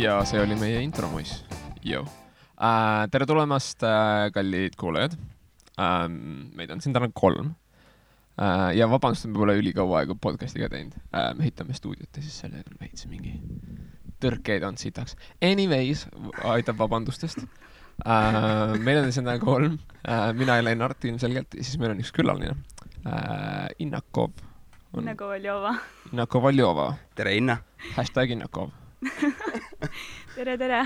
Ja see oli meie intromuis. Tere tulemast, kallid kuulajad. Meid on siin täna 3. Ja vabandust, me pole ülikaua aega podcastiga teinud. Me ehitame stuudiot ja siis selle veits mingi tõrkeid on sitaks. Anyways, aitab vabandustest. Meil on siin täna 3. Mina ja Lennart ilmselgelt. Ja siis meil on üks külaline. Innakov. Innakov Aljova. Tere, Inna. #Innakov. tere.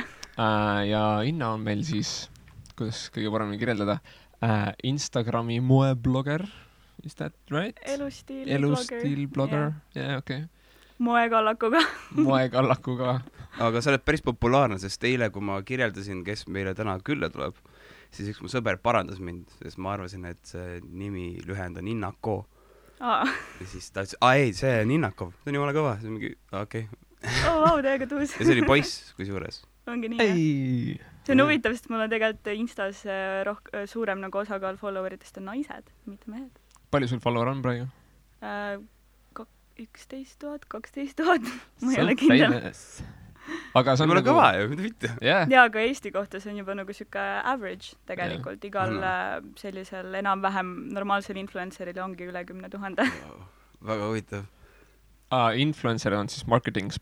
Ja Inna on meil siis, kuidas kõige paremini kirjeldada, Instagrami moeblogger. Is that right? Elustiilblogger. Yeah, okay. Moekallakuga. Aga sa oled päris populaarne, sest eile, kui ma kirjeldasin, kes meile täna külla tuleb, siis üks mu sõber parandas mind, sest ma arvasin, et see nimi lühend on Innako. Ja siis ta ütles, ei, see on Innakov. See on jumala kõva. See on mingi, okei. Täiega tuus. Ja see oli poiss, kui suures. Ongi nii, jah. See on huvitav, sest mul on tegelikult Instas suurem nagu osakaal followeritest on naised, mitte mehed. Palju sul follower on praegu? 11 000, 12 000. Ma ei ole kindel. Aga see on nagu... kõva ju, mida mitte. Ja, aga Eesti kohta see on juba nagu siuke average tegelikult. Igal sellisel enam-vähem normaalsel influenceril ongi üle 10 000. Väga huvitav. Influencer on siis marketing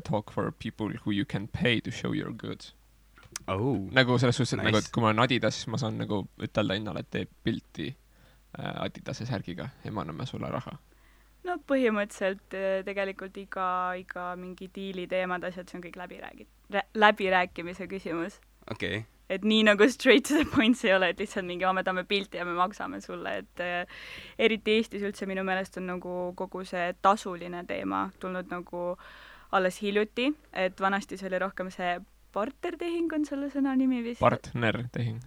talk for people who you can pay to show your goods. Nagu selles suhtes, et, nagu, et kui ma olen Adidas, siis ma saan nagu ütelda Innale, et teeb pilti Adidase särgiga ja ma anname sulle raha. No põhimõtteliselt tegelikult iga mingi diili teemad asjad, see on kõik läbirääkimise küsimus. Okay. Et nii nagu straight to the points ei ole, et lihtsalt mingi me tahame pilti ja me maksame sulle, et eriti Eestis üldse minu meelest on nagu kogu see tasuline teema tulnud nagu alles hiljuti, et vanasti see oli rohkem see bartertehing on selle sõna nimi vist. Bartertehing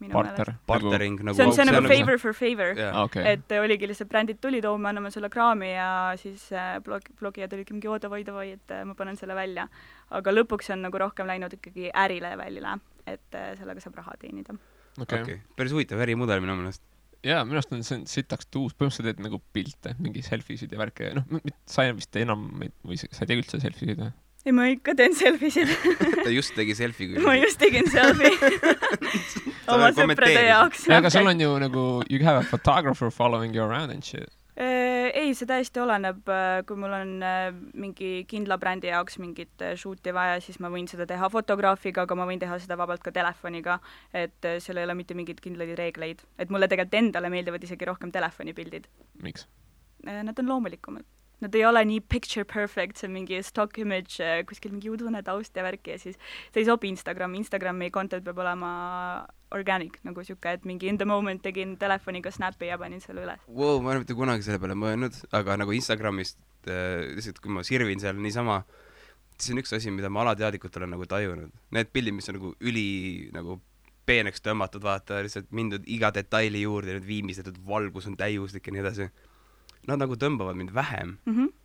minu meelest. Bartering nagu... See on see nagu favor for favor. Yeah. Okay. Et oligi lihtsalt brändid tulid, me anname sulle kraami ja siis blogijad olidki mingi davai, et ma panen selle välja. Aga lõpuks on nagu rohkem läinud ikkagi ärilevelile, et sellega saab raha teenida. Okay. Päris huvitav ärimudel minu meelest. Jaa, minu arust on see sitaks tuus. Põhimõtteliselt teed nagu pilte, mingi selfiesid ja värke. Sa vist enam, või sa ei tee üldse selfiesid või? Ei, ma ikka teen selfiesid. Ta just tegi selfie. Ma just tegin selfie. Oma sõprade jaoks. Aga sul on ju nagu, you have a photographer following you around and shit. Ei, see täiesti oleneb, kui mul on mingi kindla brändi jaoks mingit shooti vaja, siis ma võin seda teha fotograafiga, aga ma võin teha seda vabalt ka telefoniga, et seal ei ole mitte mingid kindlaid reegleid. Et mulle tegelikult endale meeldivad isegi rohkem telefonipildid. Miks? Nad on loomulikumad. Nad ei ole nii picture perfect, see on mingi stock image, kuskil mingi udune taust ja värki ja siis see ei sobi Instagrami content peab olema organic, nagu siuke, et mingi in the moment tegin telefoniga snappi ja panin selle üles. Ma ei mitte kunagi selle peale mõelnud, aga nagu Instagramist, lihtsalt kui ma sirvin seal niisama, siis on üks asi, mida ma alateadlikult olen nagu tajunud. Need pildid, mis on nagu nagu peeneks tõmmatud, vaata, lihtsalt mindud iga detaili juurde, nüüd viimistletud valgus on täiuslik ja nii edasi. Nad nagu tõmbavad mind vähem.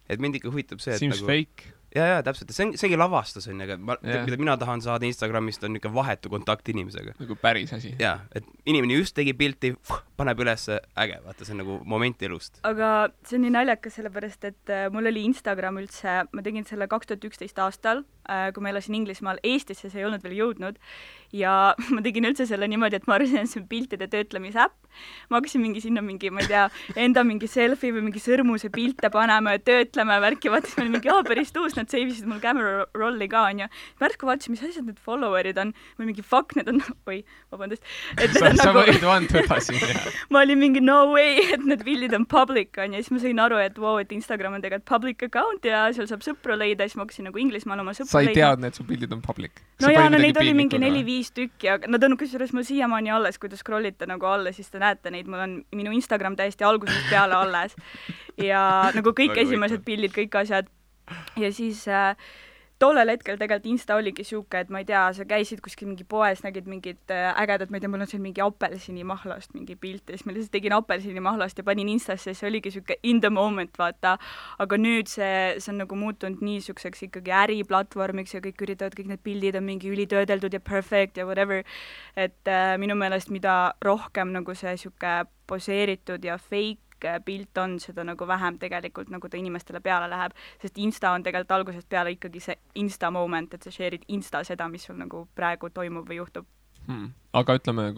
Et mind ikka huvitab see, et seems nagu... fake. Ja, täpselt. Seegi lavastus on, aga mida mina tahan saada Instagramist on ikka vahetu kontakt inimesega. Nagu päris asi. Ja, et inimene just tegi pilti, paneb üles äge, vaata, see on nagu moment elust. Aga see on nii naljakas sellepärast, et mul oli Instagram üldse, ma tegin selle 2011 aastal, kui ma elasin Inglismaal, Eestisse see ei olnud veel jõudnud ja ma tegin üldse selle niimoodi, et ma arvasin, et see on piltide töötlemise äpp. Ma hakkasin mingi sinna mingi, ma ei tea, enda mingi selfie või mingi sõrmuse pilte panema ja töötlema ja värki, vaatas meil mingi, päris tuus, nad seivisid mul camera rolli ka, on ju. Pärsku vaatasin, mis asjad need followerid on, või mingi fuck, need on, vabandust. Sa võid vantuda siin, jah. Ma olin mingi no way, et need pildid on public, on ju, siis ma sain aru, et et Instagram on tegelikult public account ja seal saab sõpru leida, siis ma hakkasin nagu Inglismaal oma sõpru leida. Sa ei teadnud, et su pildid on public? No jaa, neid oli mingi 4-5 tükki, aga nad on kusjuures mul siiamaani alles, kui te scrollite nagu alla, siis te näete neid, mul on minu Instagram täiesti algusest peale alles ja nagu kõik esimesed pildid, kõik asjad ja siis tollel hetkel tegelikult Insta oligi siuke, et ma ei tea, sa käisid kuskil mingi poes, nägid mingid ägedad, ma ei tea, mul on seal mingi apelsinimahlast mingi pilt ja siis ma lihtsalt tegin apelsinimahlast ja panin Instasse, see oligi siuke in the moment, vaata. Aga nüüd see on nagu muutunud nii siukseks ikkagi äriplatvormiks ja kõik üritavad, kõik need pildid on mingi ülitöödeldud ja perfect ja whatever. Et minu meelest mida rohkem nagu see siuke poseeritud ja fake pilt on, seda nagu vähem tegelikult nagu ta inimestele peale läheb, sest Insta on tegelikult algusest peale ikkagi see Insta moment, et sa share'id Insta seda, mis sul nagu praegu toimub või juhtub. Aga ütleme,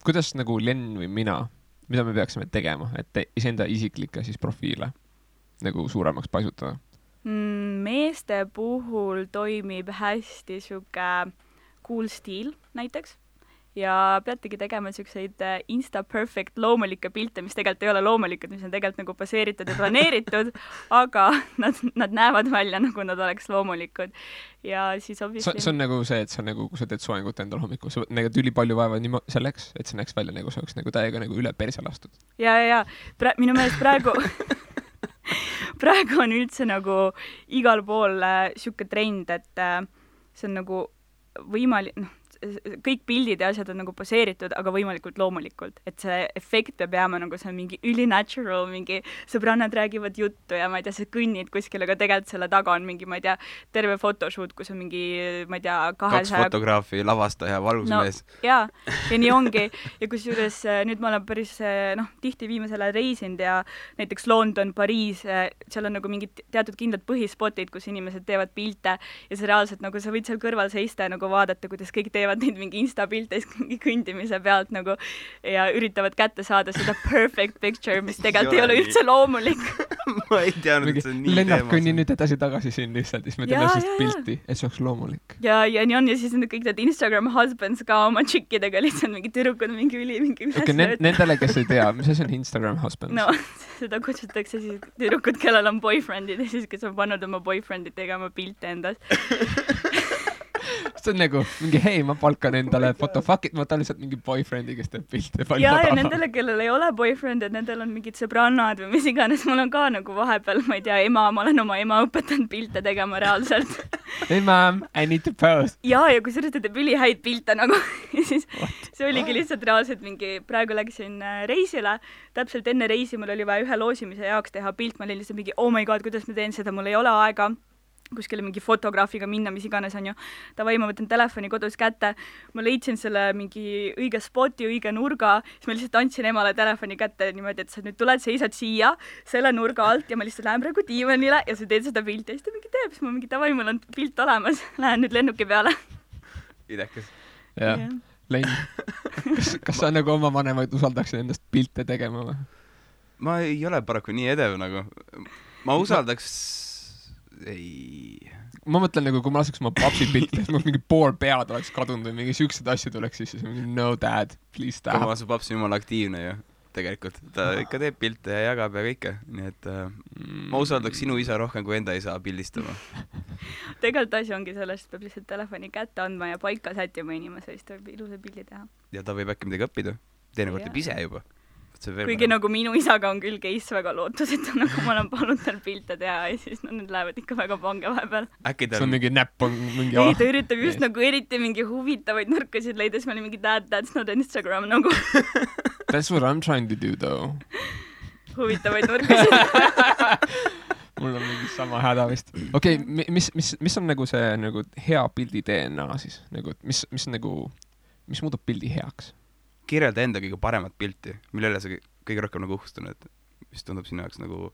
kuidas nagu Len või mina, mida me peaksime tegema, et iseenda isiklikke siis profiile nagu suuremaks paisutada? Meeste puhul toimib hästi sihuke cool stiil näiteks ja peategi tegema siukseid Insta perfect loomulikke pilte, mis tegelikult ei ole loomulikud, mis on tegelikult nagu baseeritud ja planeeritud, aga nad näevad välja, nagu nad oleks loomulikud. Ja siis obviously... See on nagu see, et sa nagu, kui sa teed soengut endal hommikul, sa nägid ülipalju vaeva selleks, et see näeks välja nagu see oleks nagu täiega nagu üle perse lastud. Ja. Minu meelest praegu on üldse nagu igal pool siuke trend, et see on nagu võimalik, kõik pildid ja asjad on nagu poseeritud, aga võimalikult loomulikult, et see efekt peab jääma nagu see on mingi ülinatural, mingi sõbrannad räägivad juttu ja ma ei tea, sa kõnnid kuskil, aga tegelikult selle taga on mingi, ma ei tea, terve photoshoot, kus on mingi, ma ei tea, 2 fotograafi, lavastaja, valgusmees. Ja nii ongi. Ja kusjuures nüüd ma olen päris, tihti viimasele reisinud ja näiteks London, Pariis, seal on nagu mingid teatud kindlad põhispotid, kus inimesed teevad pilte ja see reaalselt nagu sa võid seal kõrval seista ja nagu vaadata, kuidas kõik teevad neid mingi Insta-pilte mingi kõndimise pealt nagu ja üritavad kätte saada seda perfect picture, mis tegelikult ei ole üldse loomulik. Ma ei teadnud, et see on nii Lennart kõnni nüüd edasi-tagasi siin lihtsalt, siis me teeme sellist pilti, et see oleks loomulik. Ja nii on ja siis kõik need Instagram husbands ka oma tšikkidega lihtsalt mingi tüdrukud, mingi nendele, kes ei tea, mis asi on Instagram husbands? No, seda kutsutakse siis tüdrukud, kellel on boyfriendid ja siis, kes on pannud oma boyfriendid tegema pilte endas. See on nagu mingi, hei, ma palkan endale fotofuckid, ma tahan lihtsalt mingi boyfriend'i, kes teeb pilte. Ja nendele, kellel ei ole boyfriend, et nendel on mingid sõbrannad või mis iganes, mul on ka nagu vahepeal, ma ei tea, ma olen oma ema õpetanud pilte tegema reaalselt. Hey mom, I need to post. Ja kui sa teeb ülihäid pilte nagu, siis see oligi lihtsalt reaalselt mingi, praegu läksin reisile, täpselt enne reisi mul oli vaja ühe loosimise jaoks teha pilt, ma olin lihtsalt mingi, oh my god, kuidas ma teen seda, mul ei ole aega kuskile mingi fotograafiga minna, mis iganes on ju. Davai, ma võtan telefoni kodus kätte, ma leidsin selle mingi õige spoti, õige nurga, siis ma lihtsalt andsin emale telefoni kätte niimoodi, et sa nüüd tuled, seisad siia selle nurga alt ja ma lihtsalt lähen praegu diivanile ja sa teed seda pilti ja siis ta mingi teeb, siis ma mingi davai, mul on pilt olemas, lähen nüüd lennuki peale. Idekas. Jah, Len, kas sa nagu oma vanemaid usaldaksid endast pilte tegema või? Ma ei ole paraku nii edev nagu. Ma usaldaks... Ei. Ma mõtlen nagu, kui ma laseks oma papsi pilti, siis mul mingi pool pead oleks kadunud või mingi siuksed asju tuleks siis mingi no dad, please stop. Ma su paps jumala aktiivne ju, tegelikult. Ta ikka teeb pilte ja jagab ja kõike. Nii et ma usaldaks sinu isa rohkem kui enda isa pildistama. Tegelikult asi ongi sellest, peab lihtsalt telefoni kätte andma ja paika sättima inimese, siis ta võib ilusa pildi teha. Ja ta võib äkki midagi õppida. Teinekord teeb ise juba. Kuigi nagu minu isaga on küll case väga lootusetu, nagu ma olen palunud tal pilte teha ja siis need lähevad ikka väga pange vahepeal. See on mingi näpp on mingi... Ei, ta üritab just nagu eriti mingi huvitavaid nurkasid leida, siis ma olin mingi that's not Instagram nagu. That's what I'm trying to do though. Huvitavaid nurkasid. Mul on mingi sama häda vist. Okei, mis on nagu see nagu hea pildi DNA siis? Mis muudab pildi heaks? Kirjelda enda kõige paremat pilti, millele sa kõige rohkem nagu uhkustun, et mis tundub sinu jaoks nagu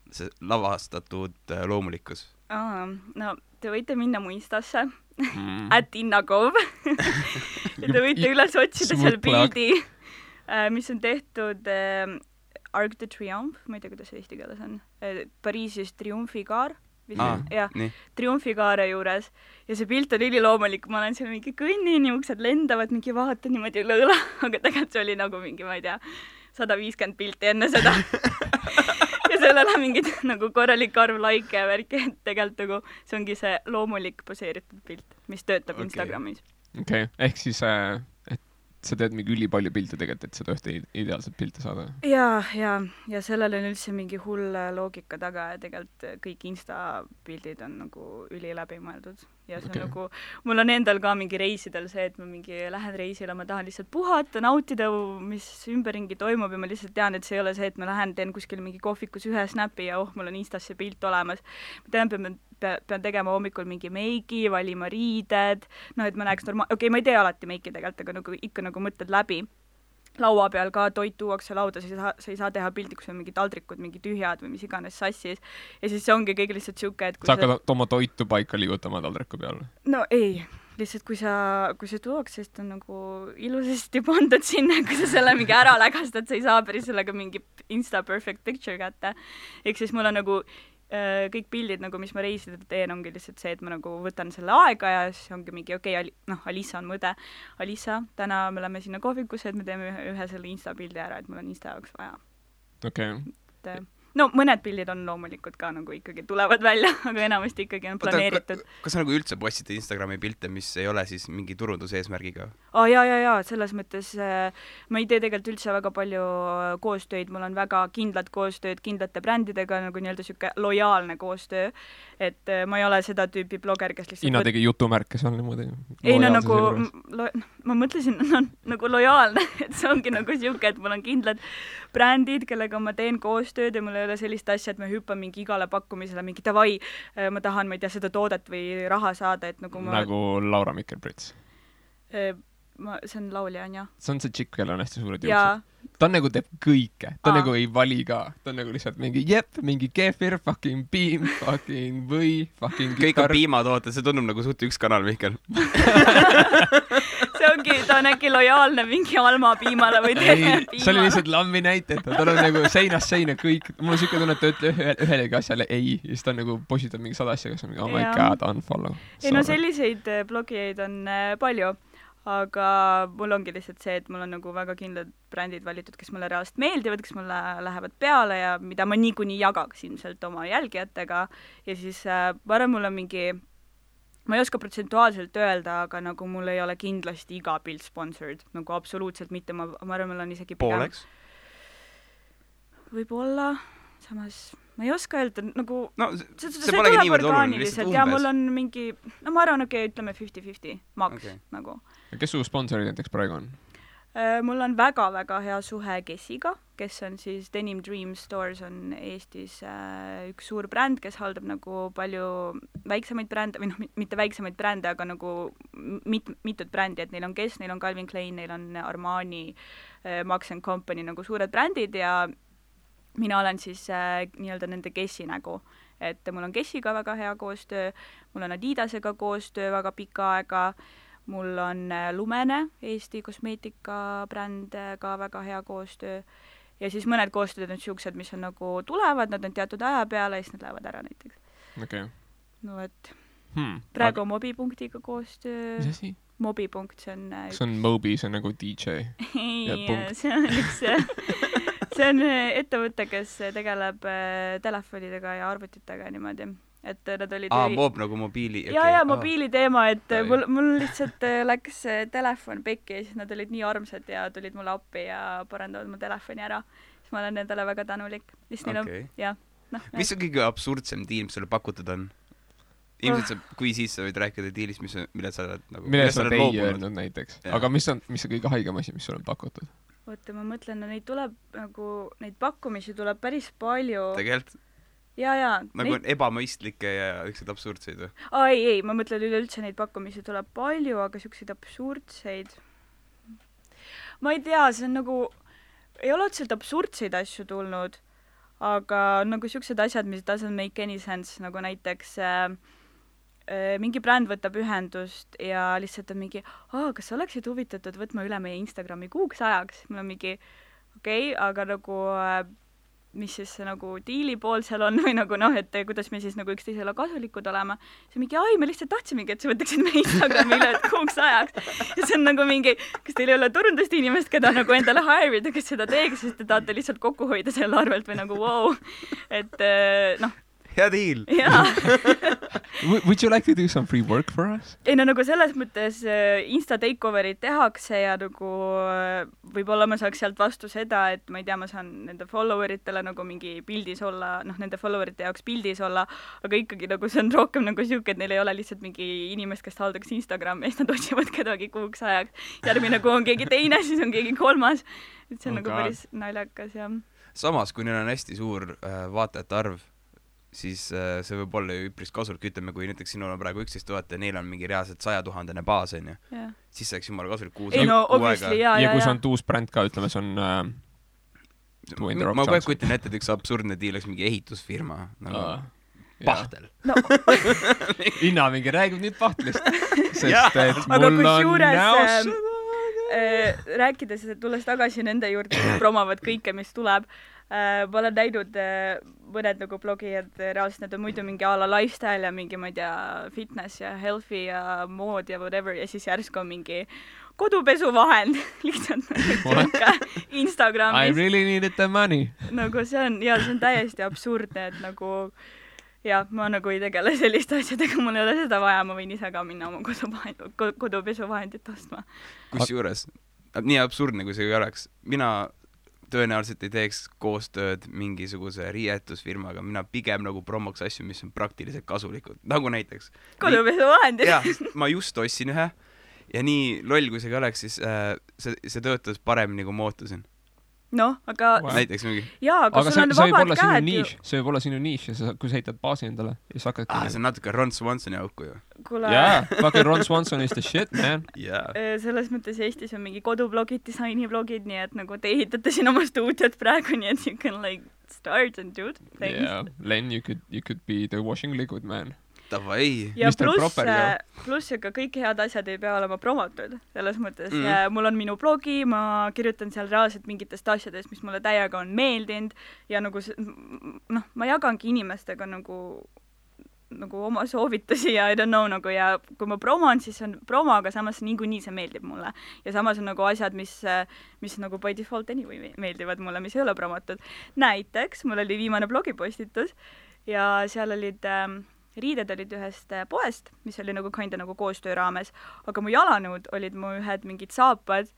see lavastatud loomulikkus? No, te võite minna mu Instasse, @innakov ja te võite üles otsida seal pildi, mis on tehtud Arc de Triomphe, ma ei tea, kuidas see eesti keeles on, Pariisis Triumfikaar. Triumfikaare juures ja see pilt on üliloomulik, ma olen seal mingi kõnnin, uksed lendavad, mingi vaatan niimoodi lõõla, aga tegelikult see oli nagu mingi, ma ei tea, 150 pilti enne seda ja sellele mingid nagu korralik arv like ja värki, et tegelikult nagu see ongi see loomulik poseeritud pilt, mis töötab Instagramis. Okei, ehk siis sa teed mingi ülipalju pilte tegelikult, et seda ühte ideaalset pilte saada. Ja sellel on üldse mingi hull loogika taga ja tegelikult kõik Insta-pildid on nagu üli läbi mõeldud. Ja see on nagu, mul on endal ka mingi reisidel see, et ma mingi lähen reisile, ma tahan lihtsalt puhata, nautida, mis ümberringi toimub ja ma lihtsalt tean, et see ei ole see, et ma lähen, teen kuskil mingi kohvikus ühe snapi ja mul on Instas see pilt olemas. Ma pean tegema hommikul mingi meiki, valima riided, et ma näeks ma ei tee alati meiki tegelikult, aga nagu ikka nagu mõtled läbi. laua peal ka toit tuuakse lauda, sa ei saa teha pildi, kus on mingid taldrikud, mingid tühjad või mis iganes sassis. Ja siis see ongi kõik lihtsalt siuke, et kui sa hakkad oma toitu paika liigutama taldriku peal? No ei, lihtsalt kui see tuuakse, siis ta on nagu ilusasti pandud sinna, kui sa selle mingi ära lägastad, sa ei saa päris sellega mingi Insta perfect picture kätte. Ehk siis mul on nagu kõik pildid, nagu mis ma reisidel teen, ongi lihtsalt see, et ma nagu võtan selle aega ja siis ongi mingi Alisa on mõde. Alisa, täna me läheme sinna kohvikusse, et me teeme ühe selle Insta pildi ära, et mul on Insta jaoks vaja. Okay. No mõned pildid on loomulikult ka nagu ikkagi tulevad välja, aga enamasti ikkagi on planeeritud. Kas sa nagu üldse postid Instagrami pilte, mis ei ole siis mingi turunduse eesmärgiga? Jaa, selles mõttes ma ei tee tegelikult üldse väga palju koostööd, mul on väga kindlad koostööd kindlate brändidega, nagu nii-öelda siuke lojaalne koostöö, et ma ei ole seda tüüpi bloger, kes lihtsalt Ina tegi jutumärke seal niimoodi. Ei, no nagu ma mõtlesin, nagu lojaalne, et see ongi nagu siuke, et mul on kindlad brändid, kellega ma teen koostööd ja mul ei ole sellist asja, et ma hüppan mingi igale pakkumisele mingi davai, ma tahan, ma ei tea, seda toodet või raha saada, et nagu ma... Nagu Laura Mikkel-Prits. See on laulja, on jah? See on see tšikk, kellel on hästi suured juuksed. Ta nagu teeb kõike. Ta nagu ei vali ka. Ta on nagu lihtsalt mingi mingi kefir, fucking piim, fucking või, fucking kõik on piimatooted, see tundub nagu suht üks kanal, Mihkel. See ongi, ta on äkki lojaalne mingi Alma piimale või teine piimale. See oli lihtsalt lammi näiteta. Ta on nagu seinast seina kõik. Mul on siuke tunne, et ta ütleb ühelegi asjale ei. Ja siis ta nagu positab mingi 100 asja, kes on mingi, oh my god, unfollow. Ei, no selliseid blogijaid on palju. Aga mul ongi lihtsalt see, et mul on nagu väga kindlad brändid valitud, kes mulle reaalselt meeldivad, kes mulle lähevad peale ja mida ma niikuinii jagaks ilmselt oma jälgijatega. Ja siis ma arvan, mul on mingi, ma ei oska protsentuaalselt öelda, aga nagu mul ei ole kindlasti iga pilt sponsored, nagu absoluutselt mitte, ma arvan, mul on isegi pigem... Pooleks? Võib-olla, samas... Ma ei oska öelda, nagu... No, see polegi niivõrd oluline, lihtsalt umbes. Ja mul on mingi... No ma arvan, ütleme 50-50 maks, nagu. Ja kes su sponsorid näiteks praegu on? Mul on väga-väga hea suhe Kessiga, kes on siis Denim Dream Stores on Eestis üks suur bränd, kes haldab nagu palju väiksemaid brände, või noh, mitte väiksemaid brände, aga nagu mitut brändi, et neil on Kess, neil on Calvin Klein, neil on Armani, Max & Company, nagu suured brändid ja mina olen siis nii-öelda nende Kessi nägu, et mul on Kessiga väga hea koostöö, mul on Adidasega koostöö väga pika aega, mul on Lumene, Eesti kosmeetikabränd ka väga hea koostöö ja siis mõned koostööd on siuksed, mis on nagu tulevad, nad on teatud aja peale ja siis nad lähevad ära näiteks. Okay. No et praegu on Mobipunktiga koostöö. Mis asi? Mobipunkt, see on... See on Mobi, see on nagu DJ. Ei, see on üks... See on ettevõte, kes tegeleb telefonidega ja arvutitega niimoodi, et nad olid... Mob nagu mobiili... Okay. Ja mobiili teema, et mul lihtsalt läks telefon pekki ja siis nad olid nii armsad ja tulid mulle appi ja parandavad mu telefoni ära. Siis ma olen nendele väga tänulik. Okay. Ja, mis on kõige absurdsem diil, mis sulle pakutud on? Ilmselt kui siis sa võid rääkida diilist, mille sa oled nagu... Mille sa oled ei öelnud näiteks. Ja. Aga mis on kõige haigem asi, mis sulle on pakutud? Oota, ma mõtlen, no neid tuleb nagu, neid pakkumisi tuleb päris palju. Tegelikult? Jaa. Nagu on ebamõistlikke ja ükseid absurdseid või? Ei, ma mõtlen üleüldse neid pakkumisi tuleb palju, aga sükseid absurdseid. Ma ei tea, see on nagu, ei ole otseselt absurdseid asju tulnud, aga nagu süksed asjad, mis doesn't make any sense, nagu näiteks... mingi bränd võtab ühendust ja lihtsalt on mingi, kas sa oleksid huvitatud võtma üle meie Instagrami kuuks ajaks? Mul on mingi, aga nagu, mis siis nagu diili pool seal on või nagu et kuidas me siis nagu üksteisele kasulikud olema. See mingi, me lihtsalt tahtsimegi, et sa võtaksid meie Instagrami üle kuuks ajaks. Ja see on nagu mingi, kas teil ei ole turundust inimest, keda nagu endale hire'ida, kes seda teeks, sest te tahate lihtsalt kokku hoida selle arvelt või nagu wow. Et hea deal! Jaa! Would you like to do some free work for us? Ei, no nagu selles mõttes Insta takeoverid tehakse ja nagu võib-olla ma saaks sealt vastu seda, et ma ei tea, ma saan nende followeritele nagu mingi pildis olla, nende followerite jaoks pildis olla, aga ikkagi nagu see on rohkem nagu siuke, et neil ei ole lihtsalt mingi inimest, kes haldaks Instagrami ja siis nad otsivad kedagi kuuks ajaks. Järgmine kuu on keegi teine, siis on keegi kolmas. Et see on nagu päris naljakas ja... Samas, kui neil on hästi suur vaatajate arv, siis see võib olla ju üpris kasulik, ütleme, kui näiteks sinul on praegu 11 000 ja neil on mingi reaalselt 100 000 baas, on ju. Siis see oleks jumala kasulik kuus obviously, ja kui see on uus bränd ka, ütleme, see on ma kogu aeg kujutan ette, et üks absurdne diil oleks mingi ehitusfirma nagu Pahtel. Inna mingi räägib nüüd Pahtlist, sest et mul on näos rääkides, et tulles tagasi nende juurde, kes promovad kõike, mis tuleb, ma olen näinud mõned nagu blogijad, reaalselt need on muidu mingi a la lifestyle ja mingi, ma ei tea, fitness ja healthy ja mood ja whatever ja siis järsku on mingi kodupesuvahend lihtsalt nagu Instagramis. I really needed the money. Nagu see on täiesti absurdne, et nagu ma nagu ei tegele selliste asjadega, mul ei ole seda vaja, ma võin ise ka minna oma kodupesuvahendit ostma. Kusjuures, nii absurdne kui see oleks, mina tõenäoliselt ei teeks koostööd mingisuguse riietusfirmaga, mina pigem nagu promoks asju, mis on praktiliselt kasulikud, nagu näiteks kodupesuvahendid. Jah, ma just ostsin ühe ja nii loll kui see ka oleks, siis see töötas paremini kui ma ootasin. Noh, aga näiteks mingi. Jaa, aga sul on vabad käed ju. See võib olla sinu niš ja kui sa heitad baasi endale ja sa hakkadki... see on natuke Ron Swansoni auku ju. Yeah, fucking Ron Swanson is the shit, man. Selles mõttes Eestis on mingi kodublogid, disainiblogid, nii et nagu te ehitate siin oma stuudiot praegu, nii et you can like start and do things. Yeah, Len, you could be the washing liquid, man. Davai. Ja pluss ka kõik head asjad ei pea olema promotud, selles mõttes. Mul on minu blogi, ma kirjutan seal reaalselt mingitest asjadest, mis mulle täiega on meeldinud ja nagu ma jagangi inimestega nagu oma soovitusi ja I don't know nagu ja kui ma promon, siis on promo, aga samas niikuinii see meeldib mulle. Ja samas on nagu asjad, mis nagu by default anyway meeldivad mulle, mis ei ole promotud. Näiteks, mul oli viimane blogipostitus ja seal olid... riided olid ühest poest, mis oli nagu kinda nagu koostöö raames, aga mu jalanõud olid mu ühed mingid saapad,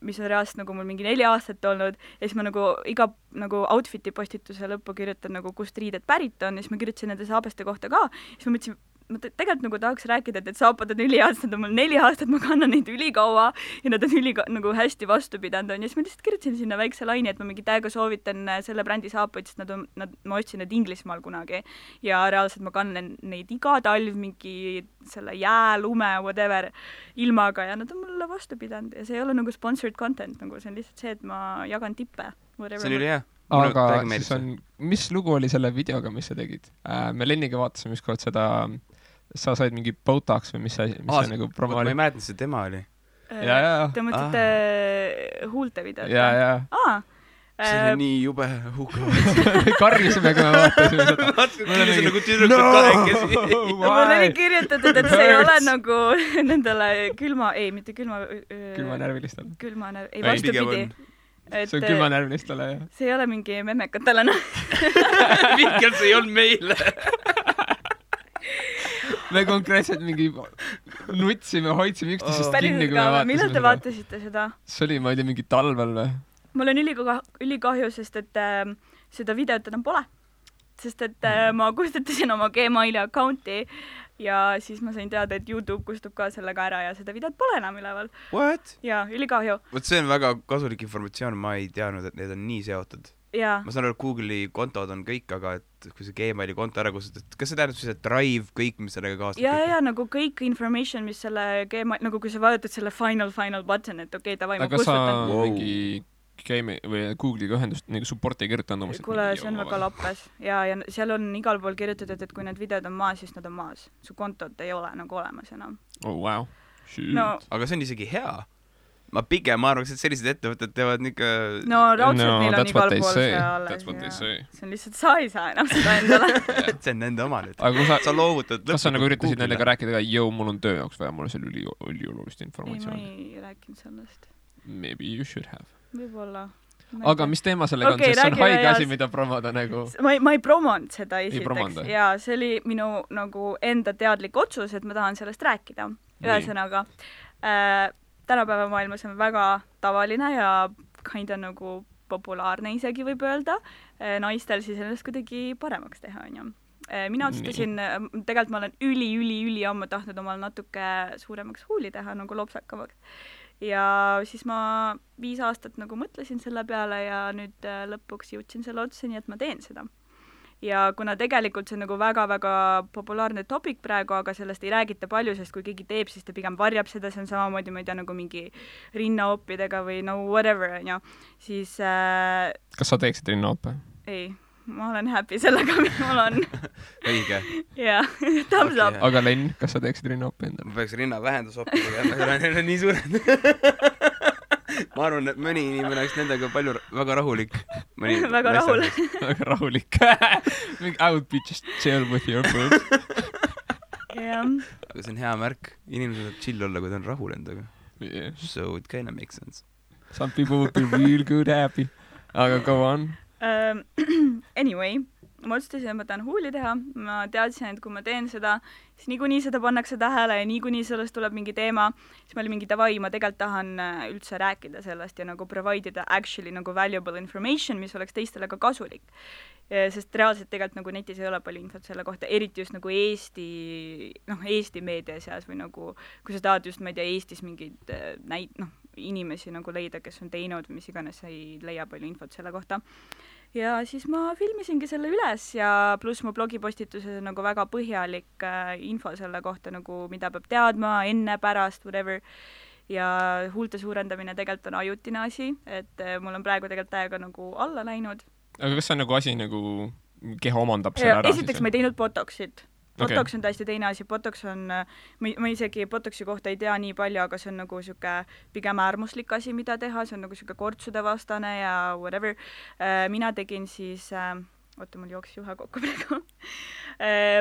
mis on reaalselt nagu mul mingi 4 aastat olnud ja siis ma nagu iga nagu outfiti postituse lõppu kirjutan nagu kust riided pärit on ja siis ma kirjutasin nende saabaste kohta ka, siis ma mõtlesin, ma tegelikult nagu tahaks rääkida, et need saapad on üliaasad, on mul 4 aastat, ma kannan neid ülikaua ja nad on nagu hästi vastu pidanud on ja siis ma lihtsalt kirjutasin sinna väikse laini, et ma mingi täiega soovitan selle brändi saapaid, sest ma ostsin need Inglismaal kunagi ja reaalselt ma kannan neid iga talv mingi selle jää, lume, whatever ilmaga ja nad on mulle vastu pidanud ja see ei ole nagu sponsored content, nagu see on lihtsalt see, et ma jagan tippe. See on üli hea. Aga siis on, mis lugu oli selle videoga, mis sa tegid? Me Lenniga vaatasime ükskord seda, sa said mingi Botox või mis see nagu promo oli? Ma ei mäletanud, see tema oli. Te mõtlete huulte videot? Ja. See oli nii jube hukavad. Karjusime, kui me vaatasime seda. See on nagu tüdrukud kahekesi. Mul oli kirjutatud, et see ei ole nagu nendele mitte külma vastupidi. See on külmanärvlistele, jah. See ei ole mingi memmekatele, Mikkel, see ei olnud meile. Me konkreetselt mingi nutsime, hoidsime üksteisest kinni, kui me vaatasime seda. Millal te vaatasite seda? See oli, ma ei tea, mingi talvel või? Mul on ülikahju, sest et seda videot enam pole. Sest et ma kustutasin oma Gmaili accounti ja siis ma sain teada, et YouTube kustub ka sellega ära ja seda videot pole enam üleval. What? Jaa, ülikahju. Vot see on väga kasulik informatsioon, ma ei teadnud, et need on nii seotud. Ma saan aru, Google'i kontod on kõik, aga et kui see Gmaili konto ära kustutad, kas see tähendab siis, et Drive, kõik, mis sellega kaastab? Ja, nagu kõik information, mis selle Gmaili, nagu kui sa vajutad selle final button, et okei, davai, ma kustutan. Aga sa mingi Google'iga ühendust nagu support ei kirjutanud omas. Kuule, see on väga lappes. Ja seal on igal pool kirjutatud, et kui need videod on maas, siis nad on maas. Su kontot ei ole nagu olemas enam. Oh, wow. Aga see on isegi hea. Ma pigem arvaks, et sellised ettevõtted teevad nikka... No raudselt neil on igal pool see alles. See on lihtsalt, sa ei saa enam seda endale. See on nende oma nüüd. Sa loovutad... Kas sa nagu üritasid nendega rääkida ka, mul on töö jaoks vaja, mul on seal üliolulist informatsiooni? Ei, ma ei rääkinud sellest. Maybe you should have. Võib-olla. Aga mis teema sellega on, sest see on haige asi, mida promoda nagu... Ma ei promonud seda esiteks. Ja see oli minu nagu enda teadlik otsus, et ma tahan sellest rääkida. Ühesõnaga, tänapäeva maailmas on väga tavaline ja kinda nagu populaarne isegi võib öelda. Naistel siis ennast kuidagi paremaks teha, on ju. Mina otsustasin, tegelikult ma olen üli ammu tahtnud omal natuke suuremaks huuli teha, nagu lopsakamaks. Ja siis ma 5 aastat nagu mõtlesin selle peale ja nüüd lõpuks jõudsin selle otsuseni, et ma teen seda. ja kuna tegelikult see on nagu väga-väga populaarne topic praegu, aga sellest ei räägita palju, sest kui keegi teeb, siis ta pigem varjab seda, see on samamoodi, ma ei tea, nagu mingi rinnaoppidega või no whatever, on ju, siis kas sa teeksid rinnaoppe? Ei, ma olen happy sellega, mis mul on. õige. jah, thumbs up. Aga Len, kas sa teeksid rinnaoppe endale? Ma peaks rinna vähendusoppi tegema, need on nii suured. Ma arvan, et mõni inimene oleks nendega palju väga rahulik. Väga rahulik. Väga rahulik. I would be just chill with your boobs. jah. Aga see on hea märk. Inimesed saab chill olla, kui ta on rahul endaga. Yeah. So it kind of makes sense. Some people would be real good happy. Aga go on. Anyway, ma otsustasin, et ma tahan huuli teha. Ma teadsin, et kui ma teen seda, siis niikuinii seda pannakse tähele ja niikuinii sellest tuleb mingi teema. Siis ma olin mingi davai, ma tegelikult tahan üldse rääkida sellest ja nagu provide ida actually nagu valuable information, mis oleks teistele ka kasulik. Sest reaalselt tegelikult nagu netis ei ole palju infot selle kohta, eriti just nagu Eesti meedia seas või nagu, kui sa tahad just, ma ei tea, Eestis mingid inimesi nagu leida, kes on teinud või mis iganes, ei leia palju infot selle kohta. Ja siis ma filmisingi selle üles ja pluss mu blogipostituses on nagu väga põhjalik info selle kohta, nagu mida peab teadma enne, pärast, whatever. Ja huulte suurendamine tegelikult on ajutine asi, et mul on praegu tegelikult täiega nagu alla läinud. Aga kas see on nagu asi nagu keha omandab selle ära? Esiteks ma ei teinud botoxit. Botox on täiesti teine asi, Botox on, ma isegi Botoxi kohta ei tea nii palju, aga see on nagu siuke pigem äärmuslik asi, mida teha, see on nagu siuke kortsude vastane ja whatever. Mina tegin siis, mul jooksis juhe kokku praegu.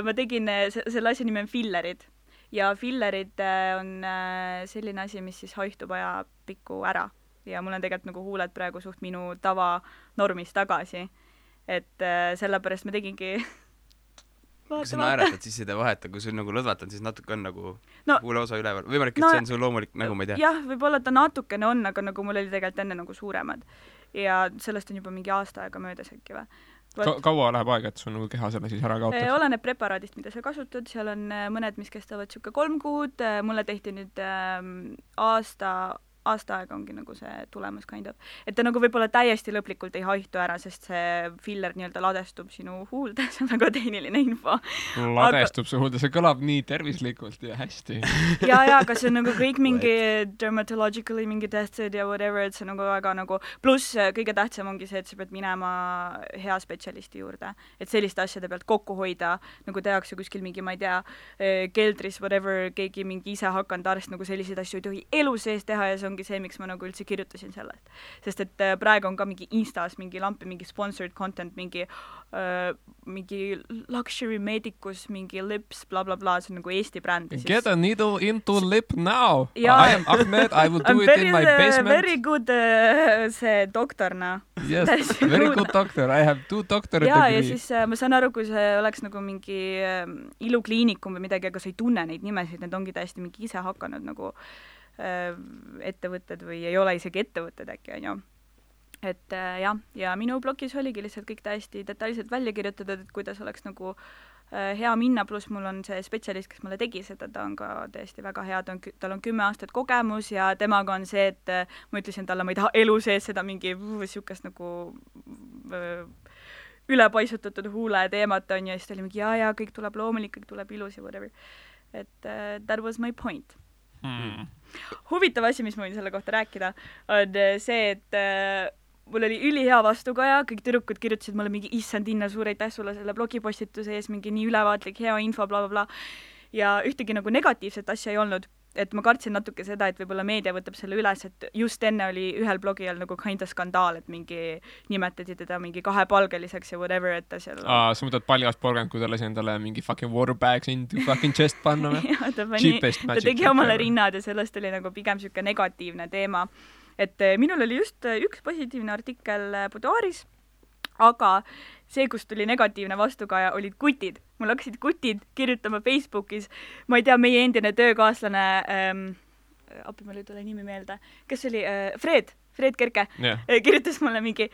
Ma tegin, selle asja nimi on fillerid ja fillerid on selline asi, mis siis haistub ajapikku ära ja mul on tegelikult nagu huuled praegu suht minu tava normis tagasi, et sellepärast ma tegingi kui sa naeratad, siis ei vaheta, kui sul nagu lõdvatad, siis natuke on nagu huule osa üleval. Võimalik, et see on sul loomulik, nagu ma ei tea. Jah, võib-olla ta natukene on, aga nagu mul oli tegelikult enne nagu suuremad. Ja sellest on juba mingi aasta aega möödas äkki või. Kaua läheb aega, et sul nagu keha selle siis ära kaotab? Oleneb preparaadist, mida sa kasutad. Seal on mõned, mis kestavad siuke 3 kuud. Mulle tehti nüüd aasta aega ongi nagu see tulemus kind of. Et ta nagu võib-olla täiesti lõplikult ei haihtu ära, sest see filler nii-öelda ladestub sinu huulde, see on väga tehniline info. Ladestub su huulde, see kõlab nii tervislikult ja hästi. ja, aga see on nagu kõik mingi dermatologically mingi tested ja whatever, et see nagu väga nagu, pluss kõige tähtsam ongi see, et sa pead minema hea spetsialisti juurde. Et selliste asjade pealt kokku hoida, nagu tehakse kuskil mingi, ma ei tea, keldris, whatever, keegi mingi ise hakanud arst, nagu selliseid asju ei tohi elu sees teha ja see ongi see, miks ma nagu üldse kirjutasin sellest. Sest et praegu on ka mingi Instas mingi lampi, mingi sponsored content, mingi luxury medicus, mingi lips, bla bla bla, see on nagu Eesti bränd. Get a needle into lip now. I am Ahmed, I will do it in my basement. Very good see doktorna. Yes, very good doctor. I have 2 doctorate degree. Ja siis ma saan aru, kui see oleks nagu mingi ilukliinikum või midagi, aga sa ei tunne neid nimesid, need ongi täiesti mingi ise hakanud nagu ettevõtted või ei ole isegi ettevõtted äkki, on ju. Et jah, ja minu blogis oligi lihtsalt kõik täiesti detailselt välja kirjutatud, et kuidas oleks nagu hea minna, pluss mul on see spetsialist, kes mulle tegi seda, ta on ka täiesti väga hea, tal on 10 aastat kogemus ja temaga on see, et ma ütlesin talle, ma ei taha elu sees seda mingi siukest nagu ülepaisutatud huule teemat on ja siis ta oli mingi ja, kõik tuleb loomulik, kõik tuleb ilus ja whatever. Et that was my point. Huvitav asi, mis ma võin selle kohta rääkida, on see, et mul oli ülihea vastukaja, kõik tüdrukud kirjutasid mulle mingi issand Inna, suur aitäh sulle selle blogipostituse ees, mingi nii ülevaatlik, hea info, bla bla bla. Ja ühtegi nagu negatiivset asja ei olnud, et ma kartsin natuke seda, et võib-olla meedia võtab selle üles, et just enne oli ühel blogijal nagu kinda skandaal, et mingi nimetati teda mingi kahepalgeliseks ja whatever, et ta seal sa mõtled paljast porgand, kui ta lasi endale mingi fucking waterbags into fucking chest panna või? Ta tegi omale rinnad ja sellest oli nagu pigem siuke negatiivne teema. Et minul oli just üks positiivne artikkel Boudoiris, aga see, kus tuli negatiivne vastukaja, olid kutid. Mul hakkasid kutid kirjutama Facebookis. Ma ei tea, meie endine töökaaslane, appi mul ei tule nimi meelde, kes oli Fred Kerke, kirjutas mulle mingi,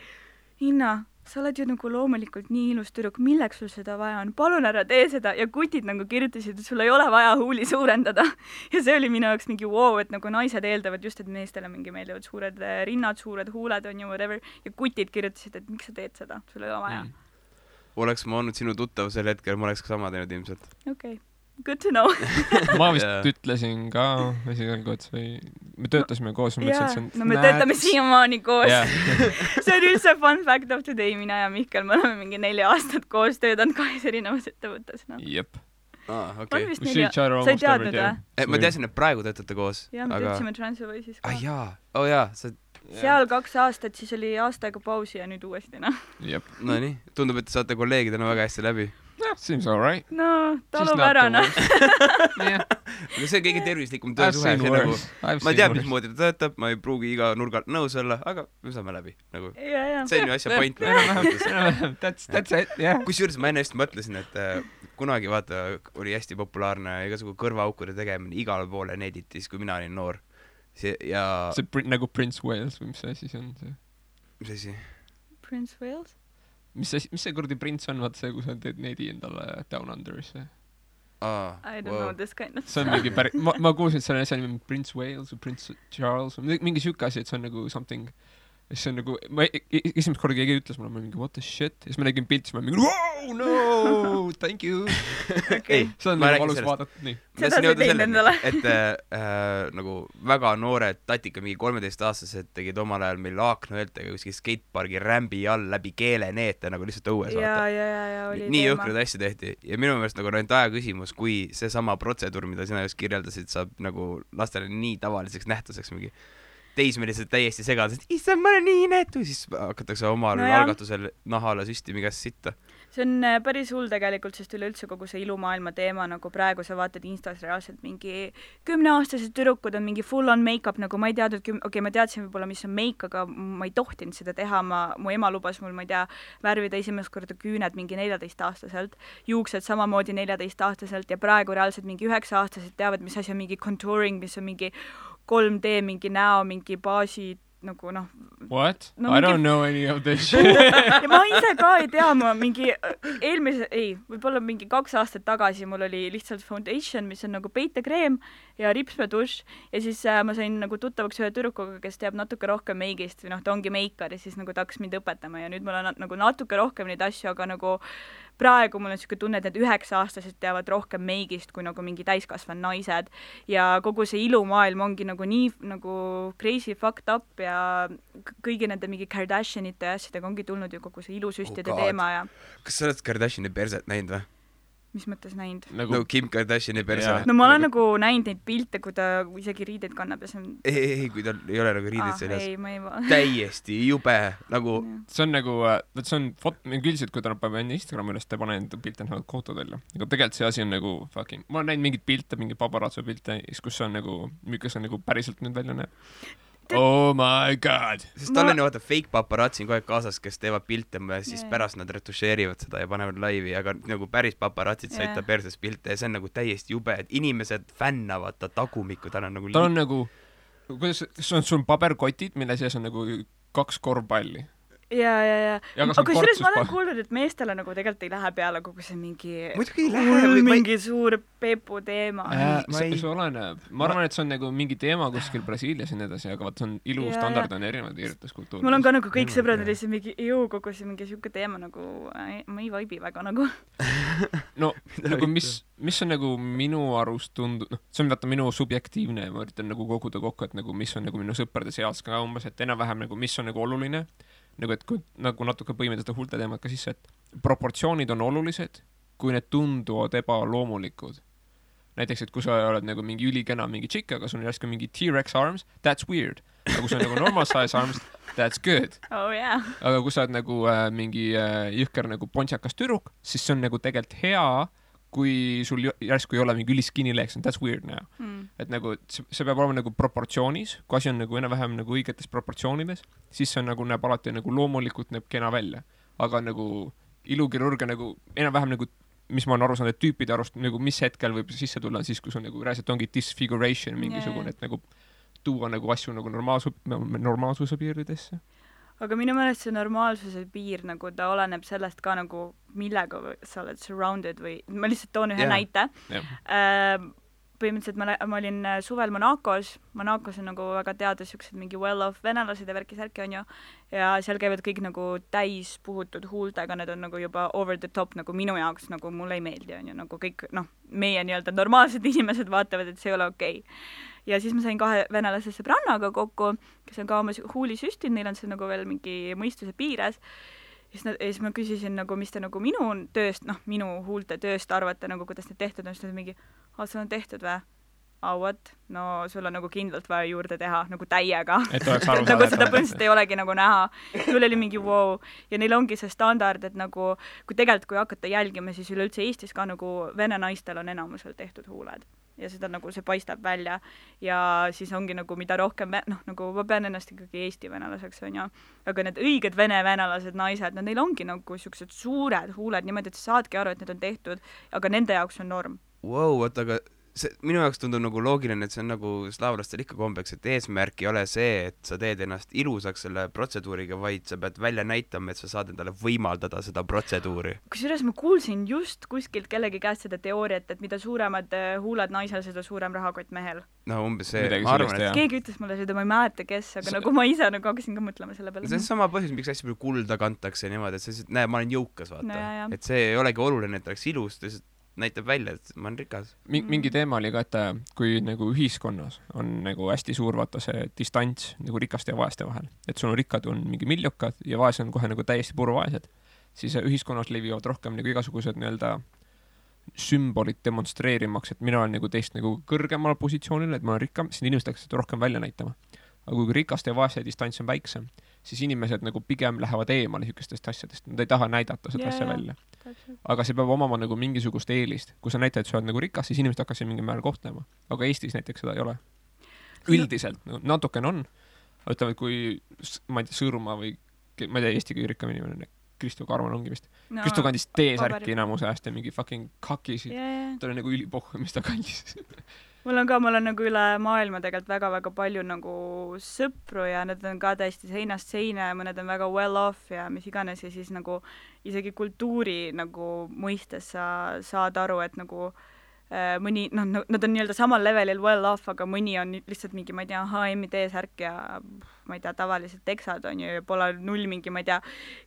Inna, sa oled ju nagu loomulikult nii ilus tüdruk, milleks sul seda vaja on? Palun ära tee seda. Ja kutid nagu kirjutasid, et sul ei ole vaja huuli suurendada. Ja see oli minu jaoks mingi wow, et nagu naised eeldavad just, et meestele mingi meeldivad suured rinnad, suured huuled on ju whatever. Ja kutid kirjutasid, et miks sa teed seda? Sul ei ole vaja. oleks ma olnud sinu tuttav sel hetkel, ma oleks ka sama teinud ilmselt. Okay. Good to know. ma vist ütlesin ka esialgu, et me töötasime koos. No me töötame siiamaani koos. See on üldse fun fact of today. Mina ja Mihkel, me oleme mingi 4 aastat koos töötanud 2 erinevas ettevõttes. No. Jep. Okay. Sa ei teadnud, või? Ma teadsin, et praegu töötate koos. Ja, me töötasime Transferwise'is ka. jaa. Seal 2 aastat, siis oli aasta aega pausi ja nüüd uuesti, noh. Jep. No nii, tundub, et te saate kolleegidena väga hästi läbi. Seems all right. No, talub ära, noh. See on kõige tervislikum töösuhe. Ma tean, mismoodi ta töötab, ma ei pruugi iga nurgalt nõus olla, aga me saame läbi. See on ju asja point. That's it, yeah. Kusjuures ma enne just mõtlesin, et kunagi vaata oli hästi populaarne igasugu kõrvaaukude tegemine igale poole neditis, kui mina olin noor. See nagu Prince Wales või mis asi see on? Mis asi? Prince Wales? Mis see kurdi prints on, vaata see, kui sa teed nedi endale Down Under'isse? I don't know this kind of stuff. See on mingi ma kuulsin, et selle asja nimi Prince Wales või Prince Charles või mingi siuke asi, et see on nagu something. See on nagu, esimest korda keegi ütles mulle, ma mingi what the shit, ja siis ma nägin pilti, ma mingi wow, no, thank you. Okay. See on nagu valus vaadata, nii. Seda sa teinud endale. Et nagu väga noored tatika, mingi 13-aastased tegid omal ajal meil Aakno-Eltega kuskil skatepargi rämbi all läbi keeleneete nagu lihtsalt õues vaata. Ja, oli nii jõhkrad asja tehti. Ja minu meelest nagu ainult aja küsimus, kui see sama protseduur, mida sina just kirjeldasid, saab nagu lastele nii tavaliseks nähtuseks mingi teismelised täiesti segadest, issa ma olen nii inetu, siis hakatakse omal algatusel nahale süstimi käest sitta. See on päris hull tegelikult, sest üleüldse kogu see ilumaailma teema, nagu praegu sa vaatad Instas reaalselt mingi 10-aastased tüdrukud on mingi full on make-up, nagu ma ei teadnud, ma teadsin võib-olla, mis on make, aga ma ei tohtinud seda teha, mu ema lubas mul, ma ei tea, värvida esimest korda küüned mingi 14-aastaselt, juuksed samamoodi 14-aastaselt ja praegu reaalselt mingi 9-aastased teavad, mis asi on mingi contouring, mis on mingi 3D, mingi näo, mingi baasi, nagu noh. What? No, I don't know any of this shit. Ja ma ise ka ei tea, ma mingi võib-olla mingi 2 aastat tagasi mul oli lihtsalt foundation, mis on nagu peitekreem ja ripsmedušš ja siis ma sain nagu tuttavaks ühe tüdrukuga, kes teab natuke rohkem meigist või noh, ta ongi meikar ja siis nagu ta hakkas mind õpetama ja nüüd mul on nagu natuke rohkem neid asju, aga nagu praegu mul on selline tunne, et need 9-aastased teavad rohkem meigist kui nagu mingi täiskasvanud naised ja kogu see ilumaailm ongi nagu nii nagu crazy fucked up ja kõigi nende mingi Kardashianite ja asjadega ongi tulnud ju kogu see ilusüstide teema ja... Kas sa oled Kardashini perset näinud või? Mis mõttes näinud? Nagu Kim Kardashini perse. No ma olen nagu näinud neid pilte, kui ta isegi riideid kannab ja see on... Ei, kui tal ei ole nagu riideid seljas. Ei, ma ei... Täiesti jube, nagu... See on nagu, see on üldiselt, kui ta paneb enne Instagrami üles, ta paneb enda pilte nagu kohtad välja. Aga tegelikult see asi on nagu fucking... Ma olen näinud mingid pilte, mingi paparazzo pilte, kus on nagu, mis on nagu päriselt nüüd välja näeb. Oh my god. Sest tal on ju vaata fake paparazzi kogu aeg kaasas, kes teevad pilte ja siis pärast nad retušeerivad seda ja panevad laivi, aga nagu päris paparazzid said ta perses pilte ja see on nagu täiesti jube, et inimesed fännavad ta tagumikku, tal on nagu... Tal on nagu, kuidas, sul on paberkotid, mille sees on nagu 2 korvpalli. Ja. Aga kusjuures ma olen kuulnud, et meestele nagu tegelikult ei lähe peale kogu see mingi... Muidugi ei lähe. Mingi suur pepu teema. See oleneb. Ma arvan, et see on nagu mingi teema kuskil Brasiilias ja nii edasi, aga vaat see on ilustandard on erinevad irjutuskultuurid. Mul on ka nagu kõik sõbrad oli see mingi kogu see mingi siuke teema nagu ma ei vaibi väga nagu. No, nagu mis on nagu minu arust tundub, see on vaata minu subjektiivne ja ma üritan nagu koguda kokku, et nagu mis on nagu minu sõprade seas ka umbes, et enam-vähem nagu mis on nagu oluline. Nagu, et kui nagu natuke põime seda hulte teemat ka sisse, et proportsioonid on olulised, kui need tunduvad ebaloomulikud. Näiteks, et kui sa oled nagu mingi ülikena mingi tšikk, aga sul on järsku mingi T-Rex arms, that's weird. Aga kui sa on nagu normal size arms, that's good. Oh yeah. Aga kui sa oled nagu mingi jõhker nagu pontsakas tüdruk, siis see on nagu tegelikult hea, kui sul järsku ei ole mingi üliskinny legs, that's weird now. Et nagu see peab olema nagu proportsioonis, kui asi on nagu enam-vähem nagu õigetes proportsioonides, siis see on nagu näeb alati nagu loomulikult näeb kena välja. Aga nagu ilukirurgia nagu enam-vähem nagu, mis ma olen aru saanud, et tüüpide arust nagu mis hetkel võib sisse tulla, siis kui sul nagu reaalselt ongi disfiguration mingisugune, et nagu tuua nagu asju nagu normaalsuse piiridesse. Aga minu meelest see normaalsuse piir, nagu ta oleneb sellest ka nagu millega sa oled surrounded või ma lihtsalt toon ühe näite. põhimõtteliselt ma olin suvel Monacos on nagu väga teada siuksed mingi well-off venelased ja värki-särki on ju, ja seal käivad kõik nagu täis puhutud huultega, need on nagu juba over the top nagu minu jaoks, nagu mulle ei meeldi on ju, nagu kõik meie nii-öelda normaalsed inimesed vaatavad, et see ei ole okei. Ja siis ma sain 2 venelase sõbrannaga kokku, kes on ka oma huuli süstinud, neil on see nagu veel mingi mõistuse piires. Ja siis ma küsisin nagu, mis te nagu minu tööst, minu huulte tööst arvate, nagu kuidas need tehtud on, siis nad mingi, sul on tehtud või? What? No sul on nagu kindlalt vaja juurde teha, nagu täiega. Et oleks aru nagu seda põhimõtteliselt ei olegi nagu näha. Mul oli mingi wow. Ja neil ongi see standard, et nagu, kui hakata jälgima, siis üleüldse Eestis ka nagu vene naistel on enamusel tehtud huuled. Ja seda nagu see paistab välja ja siis ongi nagu mida rohkem, nagu ma pean ennast ikkagi Eesti venelaseks, on ju, aga need õiged venelased naised, neil ongi nagu siuksed suured huuled niimoodi, et sa saadki aru, et need on tehtud, aga nende jaoks on norm. Wow, aga see minu jaoks tundub nagu loogiline, et see on nagu slaavlastel ikka kombeks, et eesmärk ei ole see, et sa teed ennast ilusaks selle protseduuriga, vaid sa pead välja näitama, et sa saad endale võimaldada seda protseduuri. Kusjuures ma kuulsin just kuskilt kellegi käest seda teooriat, et mida suuremad huuled naisel, seda suurem rahakott mehel. No umbes see, ma arvan, et keegi ütles mulle seda, ma ei mäleta, kes, aga nagu ma ise nagu hakkasin ka mõtlema selle peale. See on sama põhjus, miks hästi palju kulda kantakse niimoodi, et see, näe, ma olen jõukas, vaata. No, et see ei olegi oluline, et oleks ilus, näitab välja, et ma olen rikas. Mingi teema oli ka, et kui nagu ühiskonnas on nagu hästi suur vaata see distants nagu rikaste ja vaeste vahel, et sul on rikkad on mingi miljokad ja vaesed on kohe nagu täiesti puruvaesed, siis ühiskonnas levivad rohkem nagu igasugused nii-öelda sümbolid demonstreerimaks, et mina olen nagu teist nagu kõrgemal positsioonil, et ma olen rikkam, siis inimesed hakkasid rohkem välja näitama. Aga kui rikaste ja vaeste distants on väiksem, siis inimesed nagu pigem lähevad eemale niisugustest asjadest, nad ei taha näidata seda asja välja. Aga see peab omama nagu mingisugust eelist. Kui sa näitad, et sa oled nagu rikas, siis inimesed hakkasid mingi määral kohtlema. Aga Eestis näiteks seda ei ole. Üldiselt, natukene on. Ütleme, kui, ma ei tea, Sõõrumaa või, ma ei tea, Eesti kõige rikkam inimene, Kristo Karman ongi vist. Kristo kandis T-särki enamuse ajast ja mingi fucking kakisid. Ta oli nagu ülipohhu, mis ta kandis. Mul on nagu üle maailma tegelikult väga-väga palju nagu sõpru ja need on ka täiesti seinast seina ja mõned on väga well off ja mis iganes ja siis nagu isegi kultuuri nagu mõistes sa saad aru, et nagu mõni, nad on nii-öelda samal levelil well off, aga mõni on lihtsalt mingi, ma ei tea, H&M T-särk ja ma ei tea, tavalised teksad on ju ja pole null mingi, ma ei tea,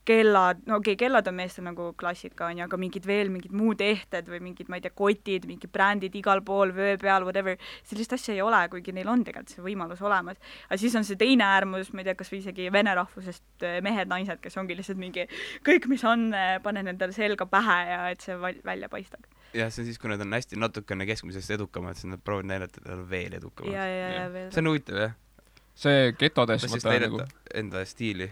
kellad, kellad on meestel nagu klassika on ju, aga mingid muud ehted või mingid, ma ei tea, kotid, mingid brändid igal pool, vöö peal, whatever, sellist asja ei ole, kuigi neil on tegelikult see võimalus olemas. Aga siis on see teine äärmus, ma ei tea, kas või isegi vene rahvusest mehed, naised, kes ongi lihtsalt mingi kõik, mis on, panen endale selga pähe ja et see välja paistab. Ja see on siis, kui nad on hästi natukene keskmisest edukamad, siis nad proovivad näidata, et nad on veel edukamad. Ja veel. See on huvitav, jah? See getodes mõtta nagu enda stiili.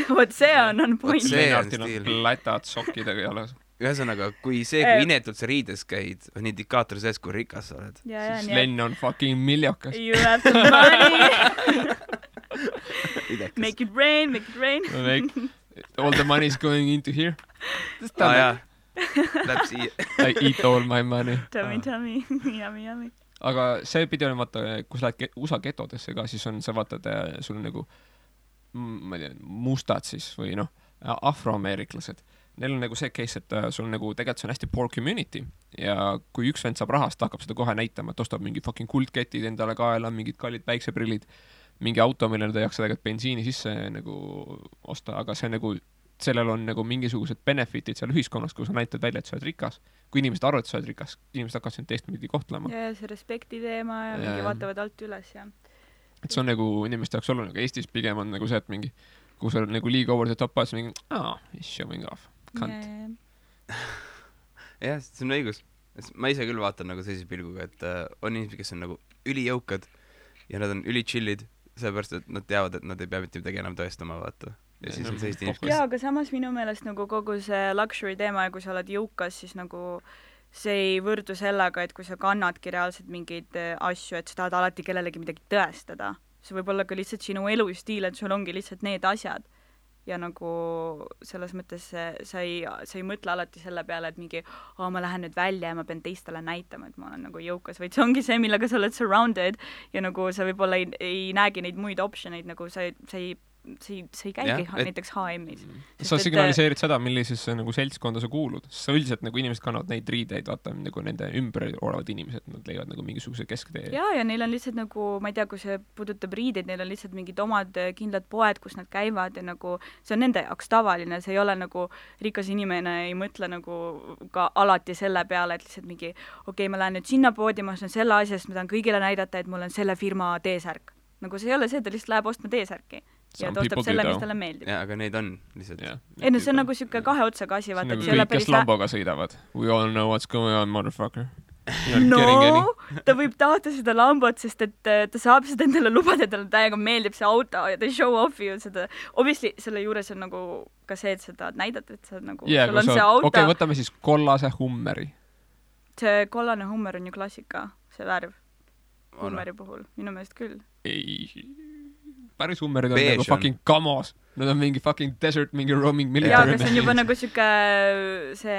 Vot see on point. See on stiil. Lätad sokkidega jalas. Ühesõnaga, kui inetult sa riides käid, on indikaator sees, kui rikas sa oled. Siis Len on fucking miljokas. You have the money. Make it rain. All the money is going into here. Jaa. Läheb siia. I eat all my money. Tummy. Yummy. Aga see pidi olema, vaata, kui sa lähed USA getodesse ka, siis on, sa vaatad, sul on nagu, ma ei tea, mustad siis või afroameeriklased. Neil on nagu see case, et sul nagu tegelikult see on hästi poor community ja kui üks vend saab rahast, hakkab seda kohe näitama, et ostab mingi fucking kuldketid endale kaela, mingid kallid päikseprillid, mingi auto, millele ta ei jaksa tegelikult bensiini sisse nagu osta, aga see nagu sellel on nagu mingisugused benefitid seal ühiskonnas, kui sa näitad välja, et sa oled rikas. Kui inimesed arvavad, et sa oled rikas, inimesed hakkavad sind teistpidi kohtlema. Ja see respekti teema ja mingi vaatavad alt üles ja. Et see on nagu inimeste jaoks oluline, aga Eestis pigem on nagu see, et mingi, kui sa oled nagu liiga over the top, siis mingi, he's showing off, kant. Jah, see on õigus. Ma ise küll vaatan nagu sellise pilguga, et on inimesed, kes on nagu ülijõukad ja nad on ülichillid, sellepärast, et nad teavad, et nad ei pea mitte midagi enam tõestama, vaata. Ja siis on sellist inimesed. Jaa, aga samas minu meelest nagu kogu see luxury teema ja kui sa oled jõukas, siis nagu see ei võrdu sellega, et kui sa kannadki reaalselt mingeid asju, et sa tahad alati kellelegi midagi tõestada. See võib olla ka lihtsalt sinu elustiil, et sul ongi lihtsalt need asjad. Ja nagu selles mõttes sa ei mõtle alati selle peale, et mingi, ma lähen nüüd välja ja ma pean teistele näitama, et ma olen nagu jõukas, vaid see ongi see, millega sa oled surrounded ja nagu sa võib-olla ei näegi neid muid optioneid, nagu sa ei see ei käigi näiteks H&M-is. Sa signaliseerid seda, millisesse nagu seltskonda sa kuulud. Sa üldiselt nagu inimesed kannavad neid riideid, vaata nagu nende ümber olevad inimesed, nad leiavad nagu mingisuguse kesktee. Ja neil on lihtsalt nagu, ma ei tea, kui see puudutab riideid, neil on lihtsalt mingid omad kindlad poed, kus nad käivad ja nagu see on nende jaoks tavaline, see ei ole nagu rikas inimene ei mõtle nagu ka alati selle peale, et lihtsalt mingi okei, ma lähen nüüd sinna poodi, ma ostan selle asja, sest ma tahan kõigile näidata, et mul on selle firma T-särk. Nagu see ei ole see, ta lihtsalt läheb ostma T-särki ja ta ostab selle, mis talle meeldib. Ja, aga neid on lihtsalt. Ei, no see on nagu siuke kahe otsaga asi, vaata. See on nagu kõik, kes Lamboga sõidavad. We all know what's going on, motherfucker. No, ta võib tahta seda Lambot, sest et ta saab seda endale lubada, talle täiega meeldib see auto ja ta show off'i ju seda. Obviously, selle juures on nagu ka see, et seda näidata, et sa nagu, sul on see auto. Okei, võtame siis kollase Hummeri. See kollane Hummer on ju klassika, see värv. Hummeri puhul, minu meelest küll. Ei, päris Hummerid on nagu fucking kamos. Nad on mingi fucking desert, mingi roaming military. Jaa, aga see on juba nagu siuke see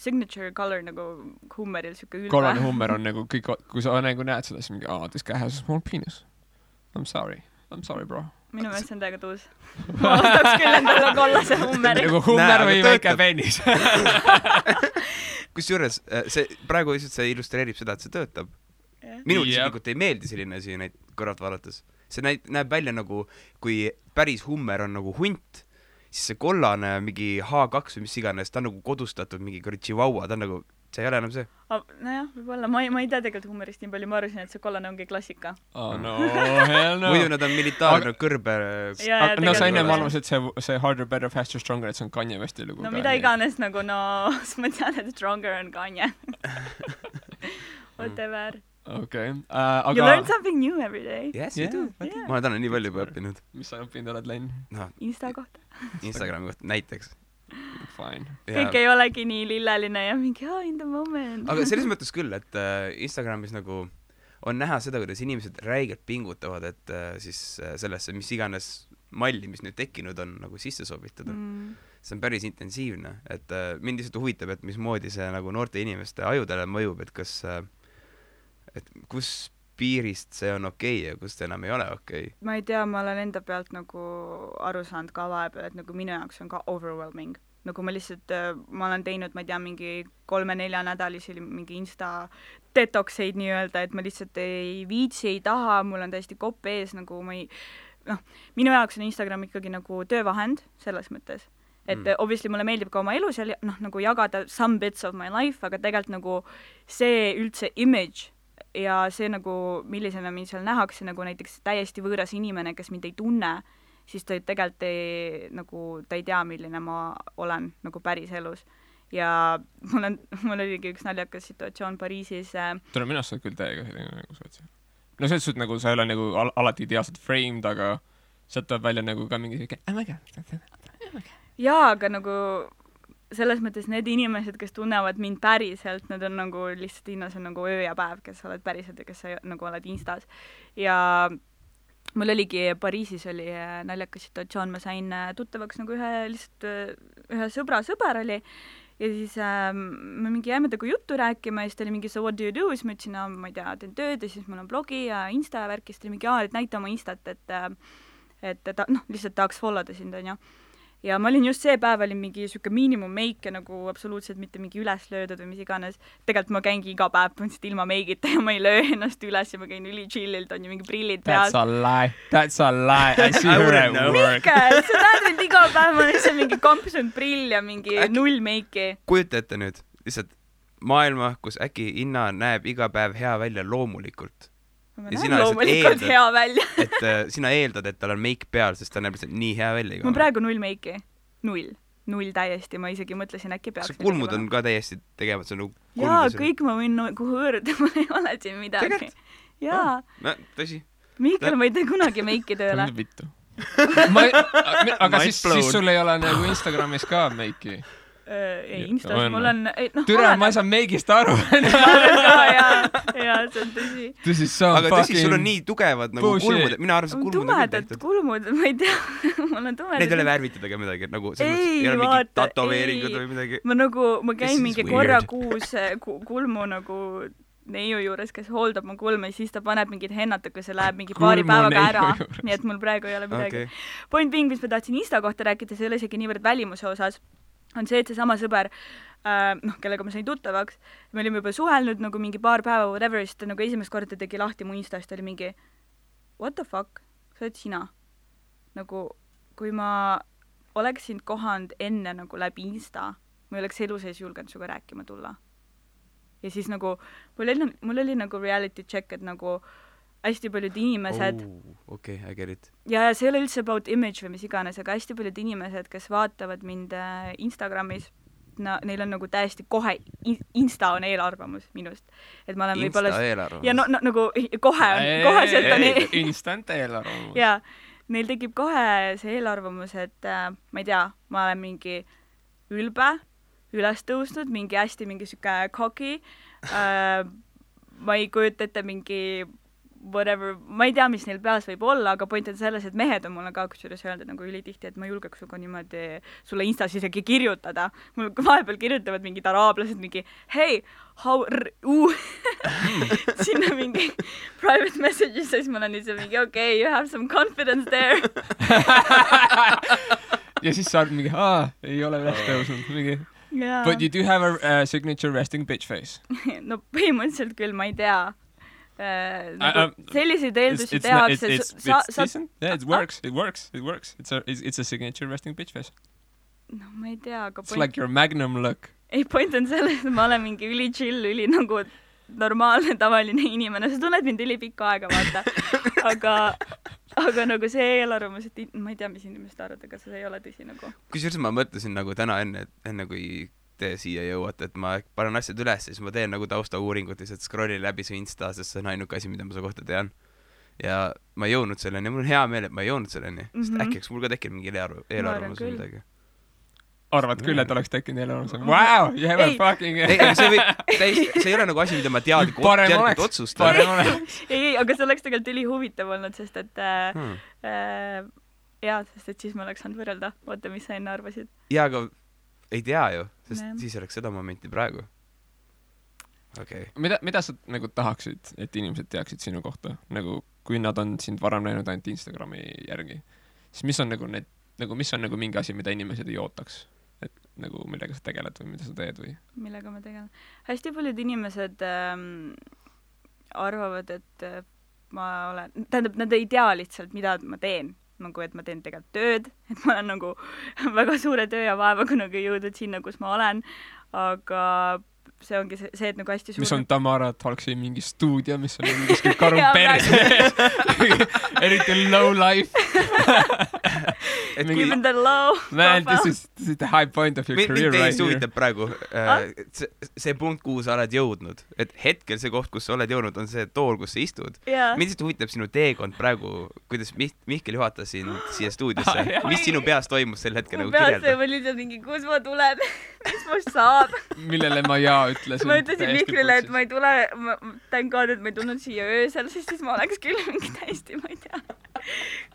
signature color nagu Hummeril, siuke ülva. Kollane Hummer on nagu kõik, kui sa nagu näed seda, siis mingi, this guy has a small penis. I'm sorry, bro. Minu meelest see on täiega tuus. Ma ostaks küll endale kollase Hummeri. Nagu Hummer või väike penis. Kusjuures, see praegu lihtsalt see illustreerib seda, et see töötab. Minul isiklikult ei meeldi selline asi neid kõrvalt vaadates. See näeb välja nagu, kui päris Hummer on nagu hunt, siis see kollane mingi H2 või mis iganes, ta on nagu kodustatud mingi chihuahua, ta on nagu, see ei ole enam see. Nojah, võib-olla, ma ei tea tegelikult Hummerist nii palju, ma arvasin, et see kollane ongi klassika. Oh no, hell no. Muidu nad on militaarne kõrbe. No sa enne arvasid, et see harder, better, faster, stronger, et see on Kanye Westi lugu. No mida iganes nagu, ma tean, et stronger on Kanye. Whatever. Okay. You learn something new every day. Yes, you do. Ma olen täna nii palju juba õppinud. Mis sa õppinud oled, Len? Insta kohta. Instagrami kohta, näiteks. Fine. Kõik ei olegi nii lilleline ja mingi, in the moment. Aga selles mõttes küll, et Instagramis nagu on näha seda, kuidas inimesed räigelt pingutavad, et siis sellesse, mis iganes malli, mis nüüd tekkinud on, nagu sisse sobitada. See on päris intensiivne, et mind lihtsalt huvitab, et mismoodi see nagu noorte inimeste ajudele mõjub, et kas et kus piirist see on okei ja kus enam ei ole okei. Ma ei tea, ma olen enda pealt nagu aru saanud ka vahepeal, et nagu minu jaoks on ka overwhelming. Nagu ma lihtsalt, ma olen teinud, ma ei tea, mingi 3-4 nädalisi mingi Insta detoxeid nii-öelda, et ma lihtsalt ei viitsi, ei taha, mul on täiesti kopp ees, nagu ma ei, minu jaoks on Instagram ikkagi nagu töövahend selles mõttes. Et obviously mulle meeldib ka oma elu seal, nagu jagada some bits of my life, aga tegelikult nagu see üldse image ja see nagu, millisena mind seal nähakse, nagu näiteks täiesti võõras inimene, kes mind ei tunne, siis ta tegelikult ta ei tea, milline ma olen nagu päris elus. Ja mul oligi üks naljakas situatsioon Pariisis. Tule minu arust küll täiega nagu sootsi. No selles suhtes nagu sa ei ole nagu alati ideaalselt framed, aga sealt tuleb välja nagu ka mingi jaa, aga nagu selles mõttes need inimesed, kes tunnevad mind päriselt, need on nagu lihtsalt hinnas on nagu öö ja päev, kes oled päriselt ja kes sa nagu oled Instas. Ja mul oligi Pariisis oli naljakas situatsioon, ma sain tuttavaks nagu ühe sõber oli ja siis me mingi jääme taga juttu rääkima ja siis ta oli mingi so what do you do, siis ma ütlesin, ma ei tea, teen tööd ja siis mul on blogi ja Insta ja värk ja siis ta oli mingi, et näita oma Instat, et ta lihtsalt tahaks followda sind, on ju. Ja ma olin just see päev, olin mingi siuke miinimum meike nagu absoluutselt mitte mingi üles löödud või mis iganes. Tegelikult ma käingi iga päev põhimõtteliselt ilma meigita ja ma ei löö ennast üles ja ma käin üli chillilt, on ju mingi prillid peal. That's a lie. I see her at work. Mikkel, sa näed mind iga päev, ma olen seal mingi kampsunud prill ja mingi null meiki. Kujuta ette nüüd lihtsalt maailma, kus äkki Inna näeb iga päev hea välja loomulikult. Ma näen loomulikult hea välja. Et sina eeldad, et tal on meik peal, sest ta näeb lihtsalt nii hea välja. Ma praegu null meiki. Null täiesti. Ma isegi mõtlesin, äkki peaks. See kulmud on ka täiesti tegevad. Jaa, kõik ma võin kuhu hõõrda, ma ei ole siin midagi. Jaa. Tõsi. Mikkel, ma ei tee kunagi meiki tööle. Vittu. Aga siis sul ei ole nagu Instagramis ka meiki? Ei, Instas mul on... Türa, ma ei saa meigist aru. Jaa, see on tõsi. Aga tõsi, sul on nii tugevad nagu kulmud. Mina arvan, see kulmud on tumedad kulmud, ma ei tea. Mul on tumedad. Neid ei ole värvitud ega midagi. Ei ole mingi tatoveeringud või midagi. Ma käin mingi korra kuus kulmu nagu neiu juures, kes hooldab mu kulme, siis ta paneb mingid hennat, aga see läheb mingi paari päevaga ära. Nii et mul praegu ei ole midagi. Point being, mis ma tahtsin Insta kohta rääkida, see ei ole isegi niivõrd välimuse osas, on see, et see sama sõber, kellega ma sain tuttavaks, me olime juba suhelnud nagu mingi paar päeva, whatever, siis ta nagu esimest korda tegi lahti mu Insta, siis ta oli mingi what the fuck, sa oled sina? Nagu, kui ma oleks sind kohanud enne nagu läbi Insta, ma ei oleks elu sees julgenud suga rääkima tulla. Ja siis nagu, mul oli nagu reality check, et nagu hästi paljud inimesed okay, I get it. Ja see ei ole üldse about image või mis iganes, aga hästi paljud inimesed, kes vaatavad mind Instagramis, neil on nagu täiesti kohe, Insta on eelarvamus minust. Et ma olen Insta eelarvamus? Ja nagu kohe sealt on instant eelarvamus. Ja, neil tekib kohe see eelarvamus, et ma ei tea, ma olen mingi ülbe, üles tõusnud, mingi hästi mingi süke cocky, ma ei kujuta ette mingi whatever, ma ei tea, mis neil peas võib olla, aga point on selles, et mehed on mulle ka kusjuures öelda nagu ülitihti, et ma julgeks suga niimoodi sulle Instas isegi kirjutada. Mul vahepeal kirjutavad mingid araablased mingi hey, sinna mingi private messages, siis ma olen ise mingi okay, you have some confidence there. Ja siis saad mingi, ei ole üles tõusnud, mingi Yeah. But you do have a signature resting bitch face. No põhimõtteliselt küll, ma ei tea. Selliseid eeldusi tehakse. Yeah, it works. It's a signature resting bitch face. No ma ei tea, aga It's like your magnum look. Ei, point on selles, et ma olen mingi üli chill, üli nagu normaalne, tavaline inimene. Sa tunned mind üli pikka aega, vaata. Aga nagu see eelarvamus, et ma ei tea, mis inimesed arvad, aga see ei ole tõsi nagu. Kusjuures ma mõtlesin nagu täna enne kui te siia jõuate, et ma panen asjad üles, siis ma teen nagu taustauuringut, lihtsalt scrollin läbi su Insta, sest see on ainuke asi, mida ma su kohta tean. Ja ma ei jõudnud selleni, mul on hea meel, et ma ei jõudnud selleni, sest äkki mul ka tekib mingi eelarvamus või midagi. Arvad küll, et oleks tekkinud eelarvamus. Wow, you have a fucking... See ei ole nagu asi, mida ma teadlikult otsustan. Ei, aga see oleks tegelikult üli huvitav olnud, sest et sest et siis ma oleks saanud võrrelda. Oota, mis sa enne arvasid? Jaa, aga ei tea ju, sest siis oleks seda momenti praegu. Okay. Mida sa nagu tahaksid, et inimesed teaksid sinu kohta? Nagu, kui nad on sind varem näinud ainult Instagrami järgi, siis mis on nagu mingi asi, mida inimesed ei ootaks? Et nagu millega sa tegeled või mida sa teed või? Millega ma tegelen? Hästi paljud inimesed arvavad, et ma olen... Tähendab, nad ei tea lihtsalt, mida ma teen. Nagu, et ma teen tegelikult tööd, et ma olen nagu väga suure töö ja vaevaga nagu jõudnud sinna, kus ma olen, aga see ongi see, et nagu hästi suur... Mis on Tamara Talksi mingi stuudio, mis on mingi karu perse. Eriti low life. Even the low. Man, this is the high point of your career right here. Mind praegu see punkt, kuhu sa oled jõudnud. Et hetkel see koht, kus sa oled jõudnud, on see tool, kus sa istud. Mind lihtsalt huvitab sinu teekond praegu, kuidas Mihkel juhatas sind siia stuudiosse. Mis sinu peas toimus sel hetkel nagu kirjelda? Mu peas oli lihtsalt mingi, kus ma tulen, mis must saab. Millele ma ütlesin. Ma ütlesin Mihklile, et ma ei tule, thank God, et ma ei tulnud siia öösel, sest siis ma oleks küll mingi täiesti, ma ei tea,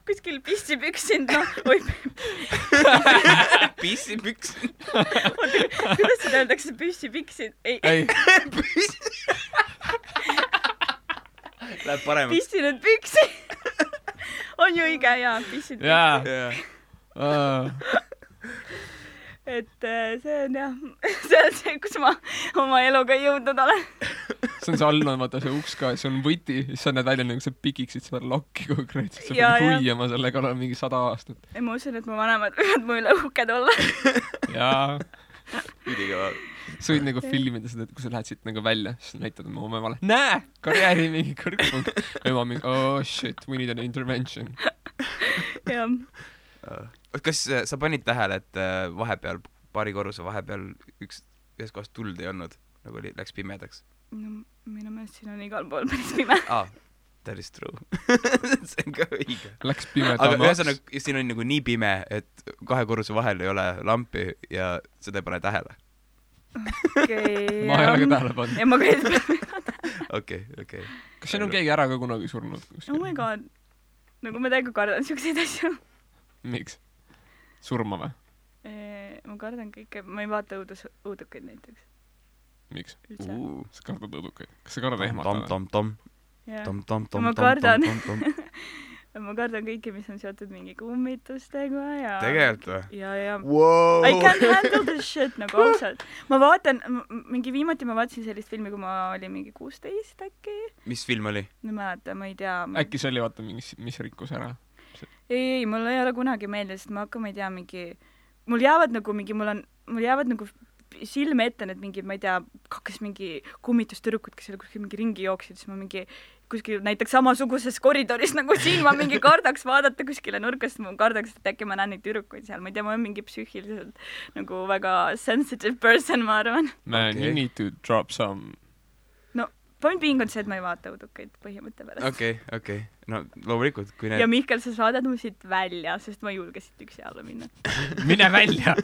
kuskil pissi püksinud, Pissi püksinud? Kuidas seda öeldakse pissi püksinud? Ei. Läheb paremaks. Pissinud püksi. On ju õige, jaa, pissinud püksi. Et see on jah, see on see, kus ma oma eluga jõudnud olen. See on see all, vaata see uks ka, see on võti, siis sa näed välja nagu sa pikiksid seda lokki konkreetselt, sa pead huiama sellega olla mingi 100 aastat. Ja ma usun, et mu vanemad võivad mu üle uhked olla. Jaa. Üdikava. Sa võid nagu filmida seda, et kui sa lähed siit nagu välja, siis näitad oma emale, näe, karjääri mingi kõrgpunkt. Ema mingi, oh shit, we need an intervention. Jah. Kas sa panid tähele, et vahepeal, paari korruse vahepeal ühes kohas tuld ei olnud, nagu läks pimedaks? No, minu meelest siin on igal pool päris pime. That is true. See on ka õige. Läks pimedamaks. Aga ühesõnaga, siin on nagu nii pime, et 2 korruse vahel ei ole lampi ja seda ei pane tähele. Okay, ma ei ole ka tähele pannud. Ja ma ka ei tähele. Okay. Kas siin on keegi ära ka kunagi surnud? Oh my god. Nagu ma täiega kardan siukseid asju. Miks? Surma või? Ma kardan kõike, ma ei vaata õudukaid näiteks. miks ? üldse . sa kardad õudukaid ? kas sa kardad ehmatada ? Ma kardan. Ma kardan kõike, mis on seotud mingi kummitustega ja tegelikult või ? ja Wow. I can't handle this shit nagu ausalt . Ma vaatan viimati ma vaatasin sellist filmi, kui ma olin mingi 16 äkki . mis film oli ? Ma ei mäleta , ma ei tea . äkki see oli vaata mingi , mis rikkus ära ? ei , mul ei ole kunagi meelde , sest ma hakkan , ma ei tea , mul jäävad nagu silme ette need mingid , ma ei tea , kaks mingi kummitustüdrukut , kes seal kuskil mingi ringi jooksid , siis ma mingi kuskil näiteks samasuguses koridoris nagu siin ma mingi kardaks vaadata kuskile nurkast , ma kardaks , et äkki ma näen neid tüdrukuid seal , ma ei tea , ma olen mingi psüühiliselt nagu väga sensitive person , ma arvan . Man , you need to drop some . point being on see , et ma ei vaata õudukaid põhimõtte pärast . okei . no loomulikult , kui ja need Mihkel , sa saadad mu siit välja , sest ma ei julge siit üksi alla minna . mine välja .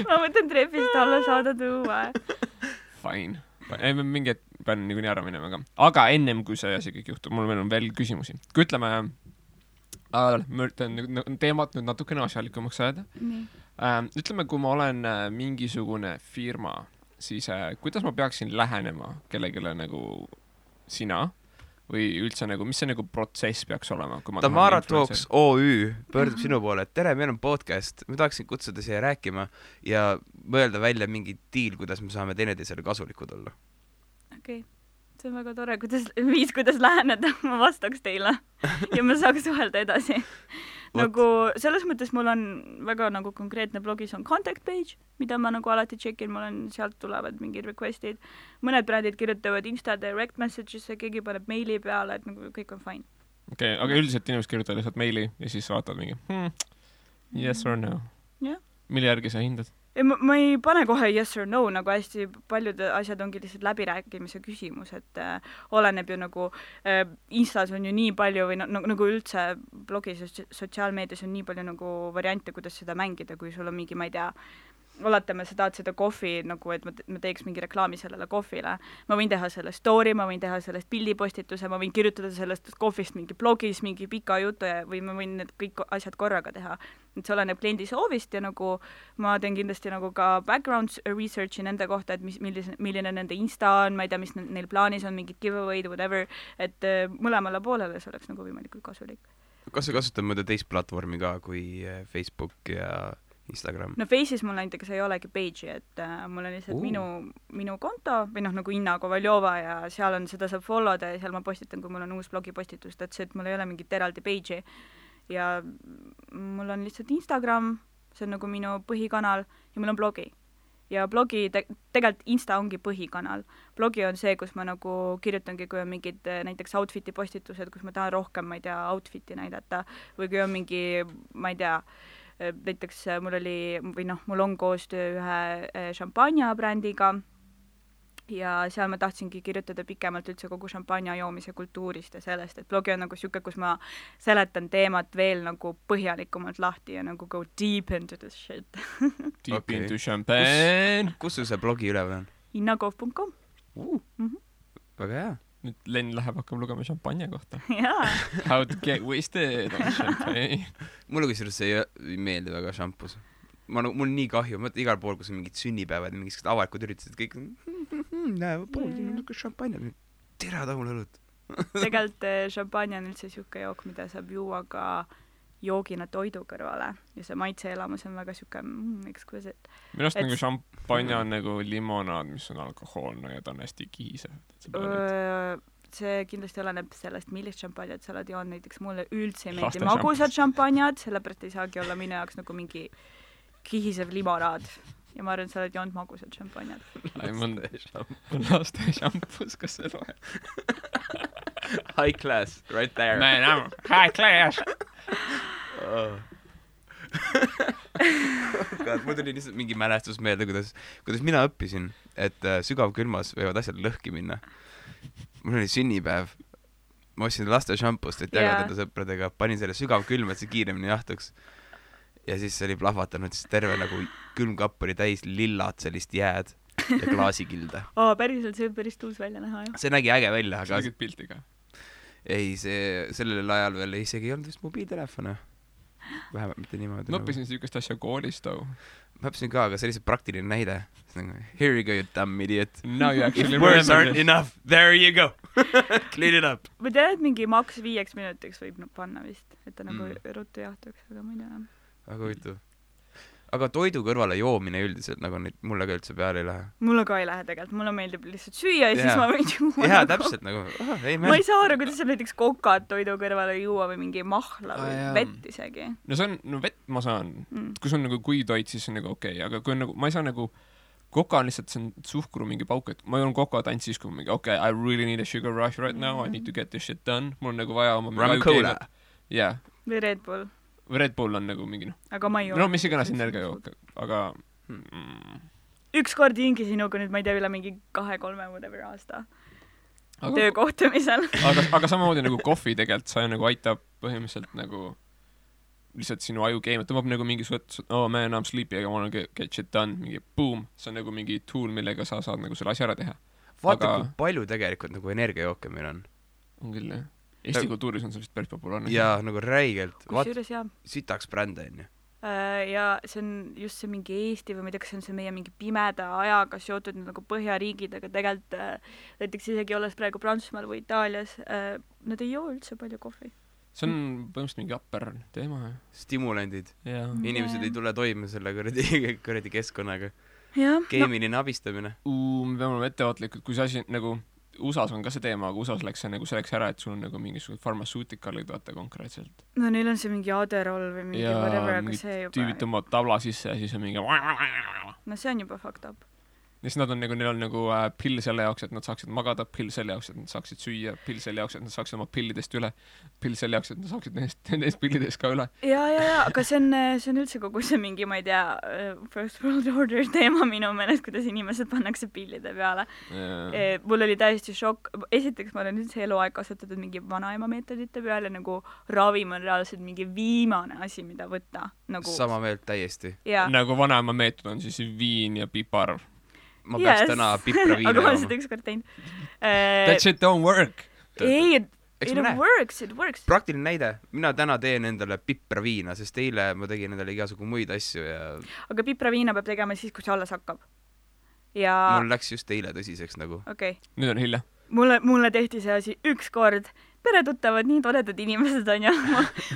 ma mõtlen trepist alla saada tuua . Fine . ei , ma mingi hetk pean niikuinii ära minema ka . aga ennem , kui see asi kõik juhtub , mul veel on veel küsimusi . kui ütleme , ma üritan teemat nüüd natukene asjalikumaks ajada . ütleme , kui ma olen mingisugune firma , siis kuidas ma peaksin lähenema kellegile nagu sina või üldse nagu , mis see nagu protsess peaks olema ? Tamara Talks OÜ pöördub sinu poole , et tere , meil on podcast , ma tahaksin kutsuda siia rääkima ja mõelda välja mingi diil , kuidas me saame teineteisele kasulikud olla . okei , see on väga tore , kuidas läheneda , ma vastaks teile ja ma saaks suhelda edasi . nagu selles mõttes mul on väga nagu konkreetne blogis on contact page , mida ma nagu alati tšekin , mul on , sealt tulevad mingid request'id , mõned brändid kirjutavad Insta direct message'isse , keegi paneb meili peale , et nagu kõik on fine . okei , aga üldiselt inimesed kirjutavad lihtsalt meili ja siis vaatavad mingi yes or no . jah . mille järgi sa hindad ? ei , ma ei pane kohe yes or no , nagu hästi paljud asjad ongi lihtsalt läbirääkimise küsimus , et oleneb ju nagu Instas on ju nii palju või nagu üldse blogis ja sotsiaalmeedias on nii palju nagu variante , kuidas seda mängida , kui sul on mingi , ma ei tea , oletame , sa tahad seda kohvi nagu , et ma teeks mingi reklaami sellele kohvile , ma võin teha selle story , ma võin teha sellest pildipostituse , ma võin kirjutada sellest kohvist mingi blogis mingi pika jutu ja , või ma võin need kõik asjad korraga teha . et see oleneb kliendi soovist ja nagu ma teen kindlasti nagu ka background research'i nende kohta , et milline nende Insta on , ma ei tea , mis neil plaanis on , mingid giveaway'd , whatever , et mõlemale poolele see oleks nagu võimalikult kasulik . kas sa kasutad mõnda teist platvormi ka kui Facebook ja Instagram ? no Face'is mul näiteks ei olegi page'i , et mul on lihtsalt minu konto või nagu Inna Kovaljova ja seal on , seda saab follow da ja seal ma postitan , kui mul on uus blogipostitus , et see , et mul ei ole mingit eraldi page'i ja mul on lihtsalt Instagram , see on nagu minu põhikanal ja mul on blogi . ja blogi tegelikult Insta ongi põhikanal . blogi on see , kus ma nagu kirjutangi , kui on mingid näiteks outfit'i postitused , kus ma tahan rohkem , ma ei tea , outfit'i näidata või kui on mingi , ma ei tea , näiteks mul on koostöö ühe šampanja brändiga ja seal ma tahtsingi kirjutada pikemalt üldse kogu šampanja joomise kultuurist ja sellest , et blogi on nagu siuke , kus ma seletan teemat veel nagu põhjalikumalt lahti ja nagu go deep into this shit . Deep into champagne . kus sul see blogi üleval on ? innakov.com . väga hea . nüüd Len läheb , hakkab lugema šampanja kohta . jaa . How to get wasted on champagne . mulle kusjuures see ei meeldi väga šampus . mul on nii kahju , mõtle igal pool , kus on mingid sünnipäevad ja mingisugused avalikud üritused , kõik näe , pool siin on niisugune šampanja , tere tahul õlut . tegelikult šampanja on üldse siuke jook , mida saab juua ka joogina toidu kõrvale ja see maitseelamus on väga siuke exquisite . minu arust nagu šampanja on nagu limonaad , mis on alkohoolne ja ta on hästi kihisev . see kindlasti oleneb sellest , millist šampanjat sa oled joonud , näiteks mulle üldse ei Laste meeldi magusad šampanjad , sellepärast ei saagi olla minu jaoks nagu mingi kihisev limonaad ja ma arvan , et sa oled joonud magusad šampanjad . laste šampus , kas see loeb ? High class , right there . Man , I m high class . mul tuli lihtsalt mingi mälestus meelde , kuidas mina õppisin , et sügavkülmas võivad asjad lõhki minna . mul oli sünnipäev , ma ostsin laste šampust , et jagada enda sõpradega , panin selle sügavkülma , et see kiiremini jahtuks . ja siis see oli plahvatanud , siis terve nagu külmkapp oli täis lillat sellist jääd ja klaasikilde . päriselt , see võib päris tuus välja näha , jah . see nägi äge välja , sa aga tegid pilti ka ? ei , see sellel ajal veel isegi ei olnud vist mobiiltelefone . vähemalt mitte niimoodi. ma õppisin niisugust asja koolis too. Ma õppisin ka, aga see oli see praktiline näide. Here you go, you dumb idiot. Now you actually Words aren't enough. There you go. Clean it up. ma tean, et mingi maks 5 minutiks võib panna vist, et ta nagu ruttu jahtuks, aga ma ei tea. Väga huvitav. Aga toidu kõrvale joomine üldiselt nagu neid mulle ka üldse peale ei lähe. Mulle ka ei lähe tegelikult, mulle meeldib lihtsalt süüa ja siis ma võin juua. Jaa, täpselt nagu, ma ei saa aru, kuidas saab näiteks kokad toidu kõrvale juua või mingi mahla või vett isegi. No see on, no vett ma saan. Kui see on nagu kuitoit, siis on nagu okei, aga kui on nagu, ma ei saa nagu, koka on lihtsalt, see on suhkru mingi pauk, et ma joon kokat ainult siis, kui mingi, okay, I really need a sugar rush right now, I need to get this shit done. Mul on nagu vaja oma Rum Cola. Yeah. Või Red Bull. Red Bull on nagu mingi aga ma ei joo. No mis iganes energiajook, aga ükskord hingi sinuga nüüd, ma ei tea, üle mingi 2-3 whatever aasta töökohtumisel. aga samamoodi nagu kohvi tegelikult sa nagu aitab põhimõtteliselt nagu lihtsalt sinu aju keemia, tõmbab nagu mingi oh man, I'm sleepy, I wanna get shit done, mingi boom, see on nagu mingi tool, millega sa saad nagu selle asja ära teha. Vaata, kui palju tegelikult nagu energiajooke meil on. On küll, jah. Eesti kultuuris on see vist päris populaarne. Jaa, nagu räigelt. Kusjuures jah. Sitaks bränd on ju. Ja see on just see mingi Eesti või ma ei tea, kas see on see meie mingi pimeda ajaga seotud nagu põhjariigid, aga tegelikult näiteks isegi olles praegu Prantsusmaal või Itaalias, nad ei joo üldse palju kohvi. See on põhimõtteliselt mingi upper teema. Stimulandid. Inimesed ei tule toime selle kuradi keskkonnaga. Keemiline abistamine. Me peame olema ettevaatlikud, kui see asi nagu USA-s on ka see teema, aga USA-s läks see nagu selleks ära, et sul on nagu mingisugused farmasuutikalid vaata konkreetselt. No neil on see mingi Adderall või mingi whatever, aga see juba... tüübid tõmbavad tabla sisse ja siis on mingi... No see on juba fucked up. Ja siis neil on nagu pill selle jaoks, et nad saaksid magada, pill selle jaoks, et nad saaksid süüa, pill selle jaoks, et nad saaksid oma pillidest üle, pill selle jaoks, et nad saaksid nendest pillidest ka üle. Ja, aga see on üldse kogu see mingi, ma ei tea, First World Order teema minu meelest, kuidas inimesed pannakse pillide peale. Mul oli täiesti šokk. Esiteks ma olen üldse eluaeg kasutatud mingi vanaema meetodite peale, nagu ravim on reaalselt mingi viimane asi, mida võtta. Nagu... Sama meelt täiesti. Nagu vanaema meetod on siis viin ja pipar. Ma peaks täna pipra viina aga ma olen seda ükskord teinud. That shit don't work. Ei, it works. Praktiline näide. Mina täna teen endale pipra viina, sest eile ma tegin endale igasugu muid asju ja... Aga pipra viina peab tegema siis, kui see alles hakkab. Ja... Mul läks just eile tõsiseks nagu. Okay. Nüüd on hilja. Mulle tehti see asi ükskord. Peretuttavad, nii toredad inimesed on ja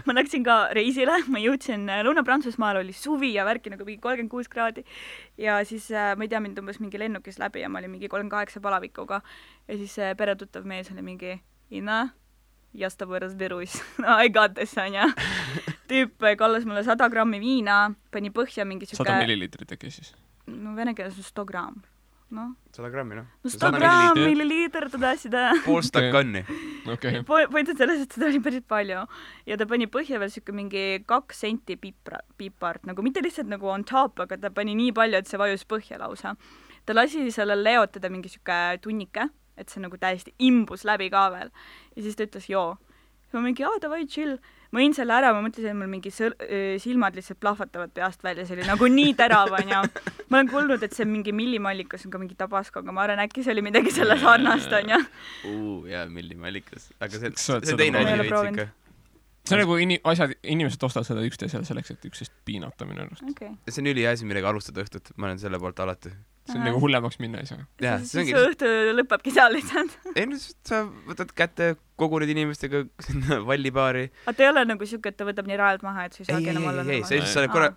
ma läksin ka reisile, ma jõudsin Lõuna-Prantsusmaal, oli suvi ja värki nagu mingi 36 kraadi ja siis ma ei tea, mind umbes mingi lennukis läbi ja ma olin mingi 38 palavikuga ja siis peretuttav mees oli mingi Ina, я с тобой разберусь. I got this, on ja. Tüüp kallas mulle 100 grammi viina, pani põhja mingi 100 milliliitrit äkki siis? No vene keeles on 100 gramm. No. 100 grammi, noh. No 100 gramm, milliliiter, seda. Pool stakkanni. Okay. Point on selles, et seda oli päris palju. Ja ta pani põhja veel siuke mingi 2 senti pipart, nagu mitte lihtsalt nagu on top, aga ta pani nii palju, et see vajus põhja lausa. Ta lasi sellel leotada mingi siuke tunnike, et see nagu täiesti imbus läbi ka veel. Ja siis ta ütles, joo. Ma mingi, davai, chill. Ma jõin selle ära, ma mõtlesin, et mul mingi silmad lihtsalt plahvatavad peast välja, see oli nagu nii terav, on ja ma olen kuulnud, et see mingi millimallikas on ka mingi Tabasco, aga ma arvan, äkki see oli midagi selle sarnast, on ja jaa, millimallikas, aga see teine asi veits ikka. See on nagu inimesed ostavad seda üksteisele selleks, et üksteist piinata minu arust. Okay. See on üliasi, millega alustada õhtut, ma olen selle poolt alati. See on nagu hullemaks minna ei saa. See õhtu lõpebki seal lihtsalt. Ei, sa võtad kätte, koguned inimestega vallipaari. Aga ta ei ole nagu siuke, et ta võtab nii rajalt maha, et sa ei saagi enam olla. Ei,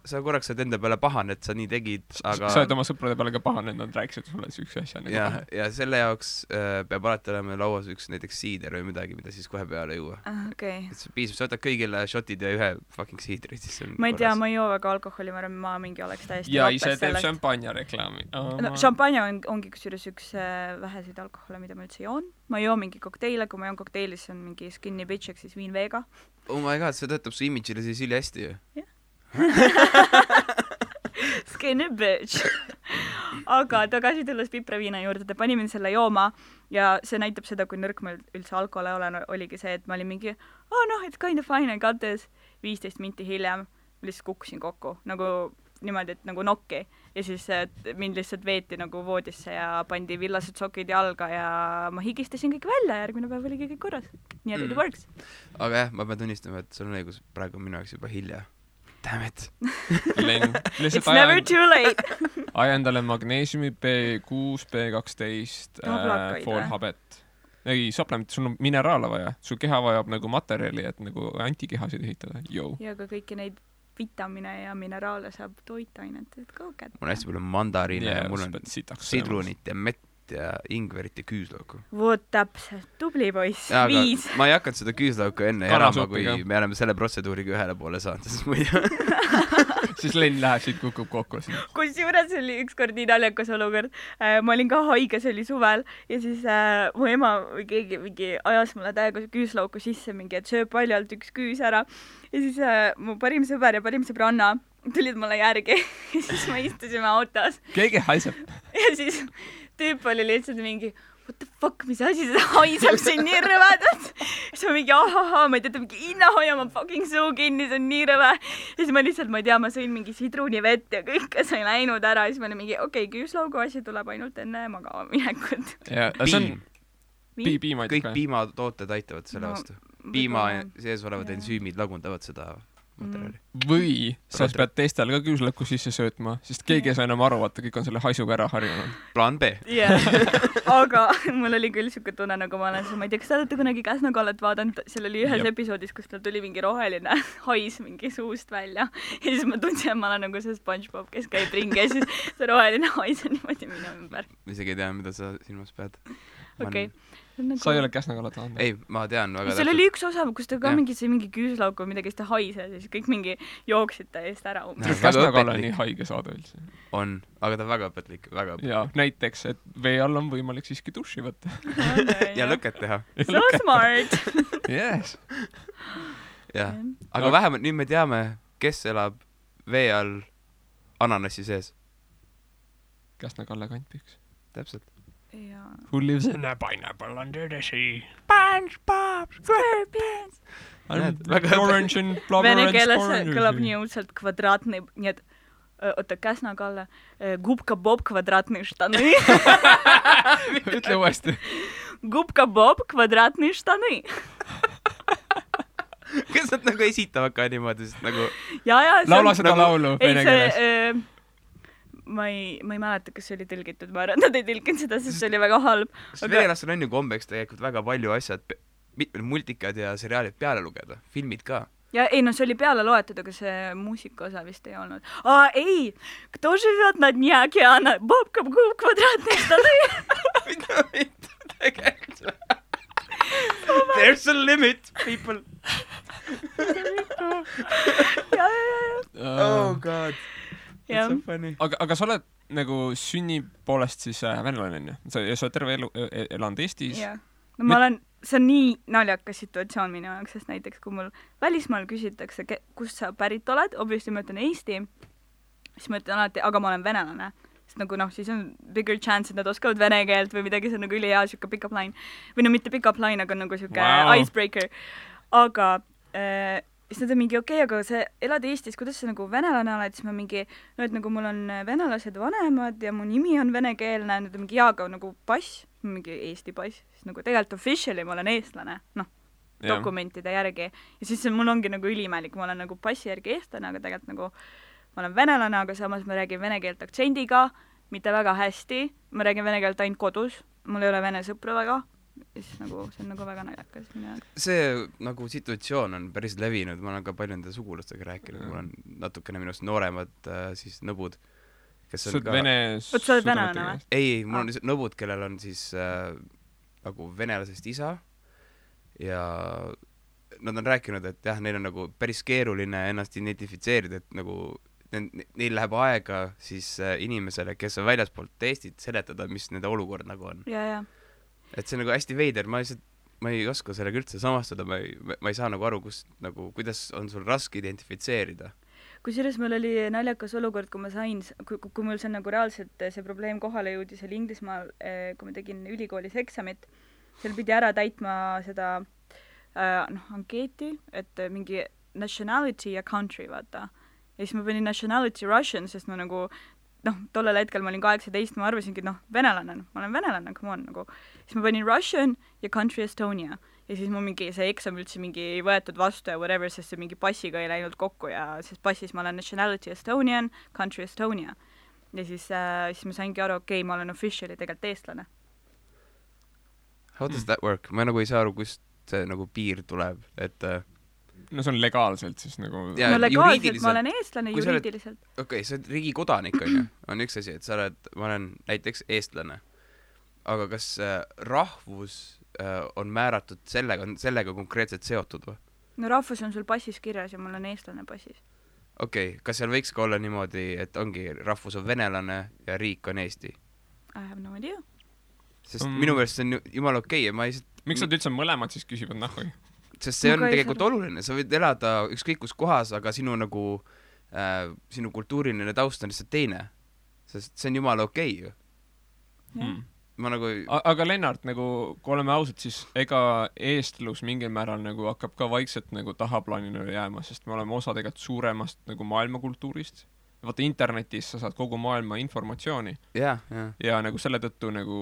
sa korraks saad enda peale pahane, et sa nii tegid, aga... Sa oled oma sõprade peale ka pahane, et nad rääkisid sulle üks asja. Ja selle jaoks peab alati olema lauas üks näiteks siider või midagi, mida siis kohe peale juua. Okay. Et see piisab, sa võtad kõigile shotid ja ühe fucking siidri, siis see on ma ei tea, ma ei joo väga alkoholi, ma mingi oleks täiesti ja ise teeb šampanja reklaami. Šampanja ongi kusjuures üks väheseid alkohole, mida ma üldse joon. Ma joo mingi kokteile, kui ma joon kokteili, siis on mingi skinny bitch, ehk siis viin veega. Oh my god, see töötab su imidžile siis üli hästi ju. Skinny bitch. Aga tagasi tulles pipraviina juurde, ta pani mind selle jooma ja see näitab seda, kui nõrk ma üldse alkohole olen, oligi see, et ma olin mingi it's kind of fine, I got this. 15 minti hiljem lihtsalt kukkusin kokku, nagu niimoodi, et nagu nokki ja siis mind lihtsalt veeti nagu voodisse ja pandi villased sokid jalga ja ma higistasin kõik välja ja järgmine päev oligi kõik korras. Nii et it works. Aga jah, ma pean tunnistama, et sul on õigus, praegu on minu jaoks juba hilja. Damn it. Len, It's never too late. aja endale magneesiumi B6, B12, Tablakaid, foolhabet. Ei, supplement, sul on mineraale vaja. Su keha vajab nagu materjali, et nagu antikehasid ehitada. Yo. Ja ka kõiki neid vitamine ja mineraale saab toitainet, et go get. Mul on hästi palju mandariine ja mul on sidrunit ja mett ja ingverit ja küüslauku. Voot täpselt, tubli poiss, 5. Ma ei hakanud seda küüslauku enne elama, kui me oleme selle protseduuriga ühele poole saanud, sest muidu siis Len läheb siit kukub kokku. Kusjuures oli ükskord nii naljakas olukord. Ma olin ka haige, see oli suvel ja siis mu ema või keegi mingi ajas mulle täiega küüslauku sisse mingi, et sööb paljalt üks küüs ära. Ja siis mu parim sõber ja parim sõbranna tulid mulle järgi ja siis me istusime autos. Keegi haiseb. Ja siis tüüp oli lihtsalt mingi what the fuck, mis asi seda haiseb siin nii rõvedalt. Siis ma mingi ahaha, ma ei tea, mingi Inna hoia ma fucking suu kinni, see on nii rõve. Ja siis ma lihtsalt, ma ei tea, ma sõin mingi sidrunivett ja kõike sai läinud ära. Ja siis ma olin mingi okei, küüslaugu asi tuleb ainult enne magama minekut. Ja see on piima. Kõik piimatooted aitavad selle vastu. Piima sees olevad ensüümid lagundavad seda materjali. Või sa pead teistel ka küüslauku sisse söötma, sest keegi ei saa enam aru, vaata, kõik on selle haisuga ära harjunud. Plaan B. Aga mul oli küll siuke tunne, nagu ma olen, ma ei tea, kas te olete kunagi Käsna-Kallet vaadanud, seal oli ühes episoodis, kus tal tuli mingi roheline hais mingi suust välja ja siis ma tundsin, et ma olen nagu see SpongeBob, kes käib ringi ja siis see roheline hais on niimoodi minu ümber. Ma isegi ei tea, mida sa silmas pead. Okei. Sa ei ole Käsna-Kallet vaadanud? Ei, ma tean väga seal oli üks osa, kus ta ka mingi küüslauk või midagi, kes ta haise ja siis kõik mingi jooksid ta eest ära. Käsna-Kalle nii haige saada üldse. On, aga ta väga õpetlik. Ja näiteks, et vee all on võimalik siiski duši võtta. Ja lõket teha. So smart. Yes. Jah, aga vähemalt nüüd me teame, kes elab vee all ananassi sees. Käsna-Kalle kantpiks. Täpselt. Who lives in a pineapple under the sea? SpongeBob SquarePants. Orange and blubber and Vene keeles kõlab nii õudselt kvadraatne, nii et oota, Käsna-Kalle, Gubka-Bob kvadratne štаны. Ütle uuesti. Gubka-Bob kvadratne štаны. Kas nad nagu esitavad ka niimoodi, sest nagu laula seda laulu vene keeles. Ma ei mäleta, kas see oli tõlgitud, ma arvan, nad ei tõlginud seda, sest see oli väga halb. Venelastel on ju kombeks tegelikult väga palju asjad, mitmed multikad ja seriaalid peale lugeda, filmid ka. Ja ei, no see oli peale loetud, aga see muusika osa vist ei olnud. Ei, кто живет на дне океана? Бобка квадратные штаны. Mida tegelikult? There's a limit, people. Oh god. That's so funny. Aga sa oled nagu sünni poolest siis venelane, on ju? Sa oled terve elu elanud Eestis? Jah. No ma olen, see on nii naljakas situatsioon minu jaoks, sest näiteks kui mul välismaal küsitakse, kust sa pärit oled, obviously ma ütlen Eesti, siis ma ütlen alati, aga ma olen venelane. Sest nagu siis on bigger chance, et nad oskavad vene keelt või midagi, see on nagu ülihea siuke pick-up line. Või no mitte pick-up line, aga nagu siuke icebreaker. Aga siis nad on mingi aga sa elad Eestis, kuidas sa nagu venelane oled, siis ma mingi, no et nagu mul on venelased vanemad ja mu nimi on venekeelne, nad on mingi aga nagu pass, mingi Eesti pass, siis nagu tegelikult officially ma olen eestlane, dokumentide järgi. Ja siis mul ongi nagu ülimälik, ma olen nagu passi järgi eestlane, aga tegelikult nagu ma olen venelane, aga samas ma räägin vene keelt aktsendiga, mitte väga hästi, ma räägin vene keelt ainult kodus, mul ei ole vene sõpru väga. Ja siis nagu, see on nagu väga naljakas minu jaoks. See nagu situatsioon on päris levinud, ma olen ka palju nende sugulastega rääkinud, mul on natukene minust nooremad siis nõbud, kes on ka... Sa oled venelane või? Ei, mul on lihtsalt nõbud, kellel on siis nagu venelasest isa ja nad on rääkinud, et jah, neil on nagu päris keeruline ennast identifitseerida, et nagu neil läheb aega siis inimesele, kes on väljaspoolt Eestit seletada, mis nende olukord nagu on. Ja. Et see on nagu hästi veider, ma ei oska sellega üldse samastada, ma ei saa nagu aru, kuidas on sul raske identifitseerida. Kusjuures mul oli naljakas olukord, kui ma sain, kui mul see nagu reaalselt see probleem kohale jõudis, oli Inglismaal, kui ma tegin ülikoolis eksamit, seal pidi ära täitma seda ankeeti, et mingi nationality ja country, vaata. Ja siis ma panin nationality Russian, sest ma nagu tollel hetkel ma olin 18, ma arvasingi, venelane, ma olen venelane, come on, nagu. Siis ma panin Russian ja country Estonia. ja siis mu mingi see eksam üldse mingi ei võetud vastu ja whatever, sest see mingi passiga ei läinud kokku ja sest passis ma olen nationality Estonian, country Estonia. Ja siis ma saingi aru, okei, ma olen officially tegelikult eestlane. How does that work? Ma nagu ei saa aru, kust see nagu piir tuleb, et no see on legaalselt siis nagu Ja no legaalselt juriidiliselt- ma olen eestlane, kui sa oled- juriidiliselt. okei, sa oled riigi kodanik, on üks asi, et ma olen näiteks eestlane. Aga kas rahvus on määratud sellega konkreetselt seotud või? No rahvus on sul passis kirjas ja mul on eestlane passis. Okei, kas seal võiks ka olla niimoodi, et ongi rahvus on venelane ja riik on Eesti? I have no idea. Sest minu meelest see on jumala okei ja ma ei... Miks nad üldse mõlemad siis küsivad nahhu? Sest see on Ma ka ei tegelikult oluline, sa võid elada ükskõik kus kohas, aga sinu nagu sinu kultuuriline taust on lihtsalt teine. Sest see on jumala okei ju. Ma nagu Aga Lennart, nagu kui oleme ausad, siis ega eestlus mingil määral nagu hakkab ka vaikselt nagu tahaplaanile jääma, sest me oleme osa tegelikult suuremast nagu maailmakultuurist. Vaata internetis sa saad kogu maailma informatsiooni ja nagu selle tõttu nagu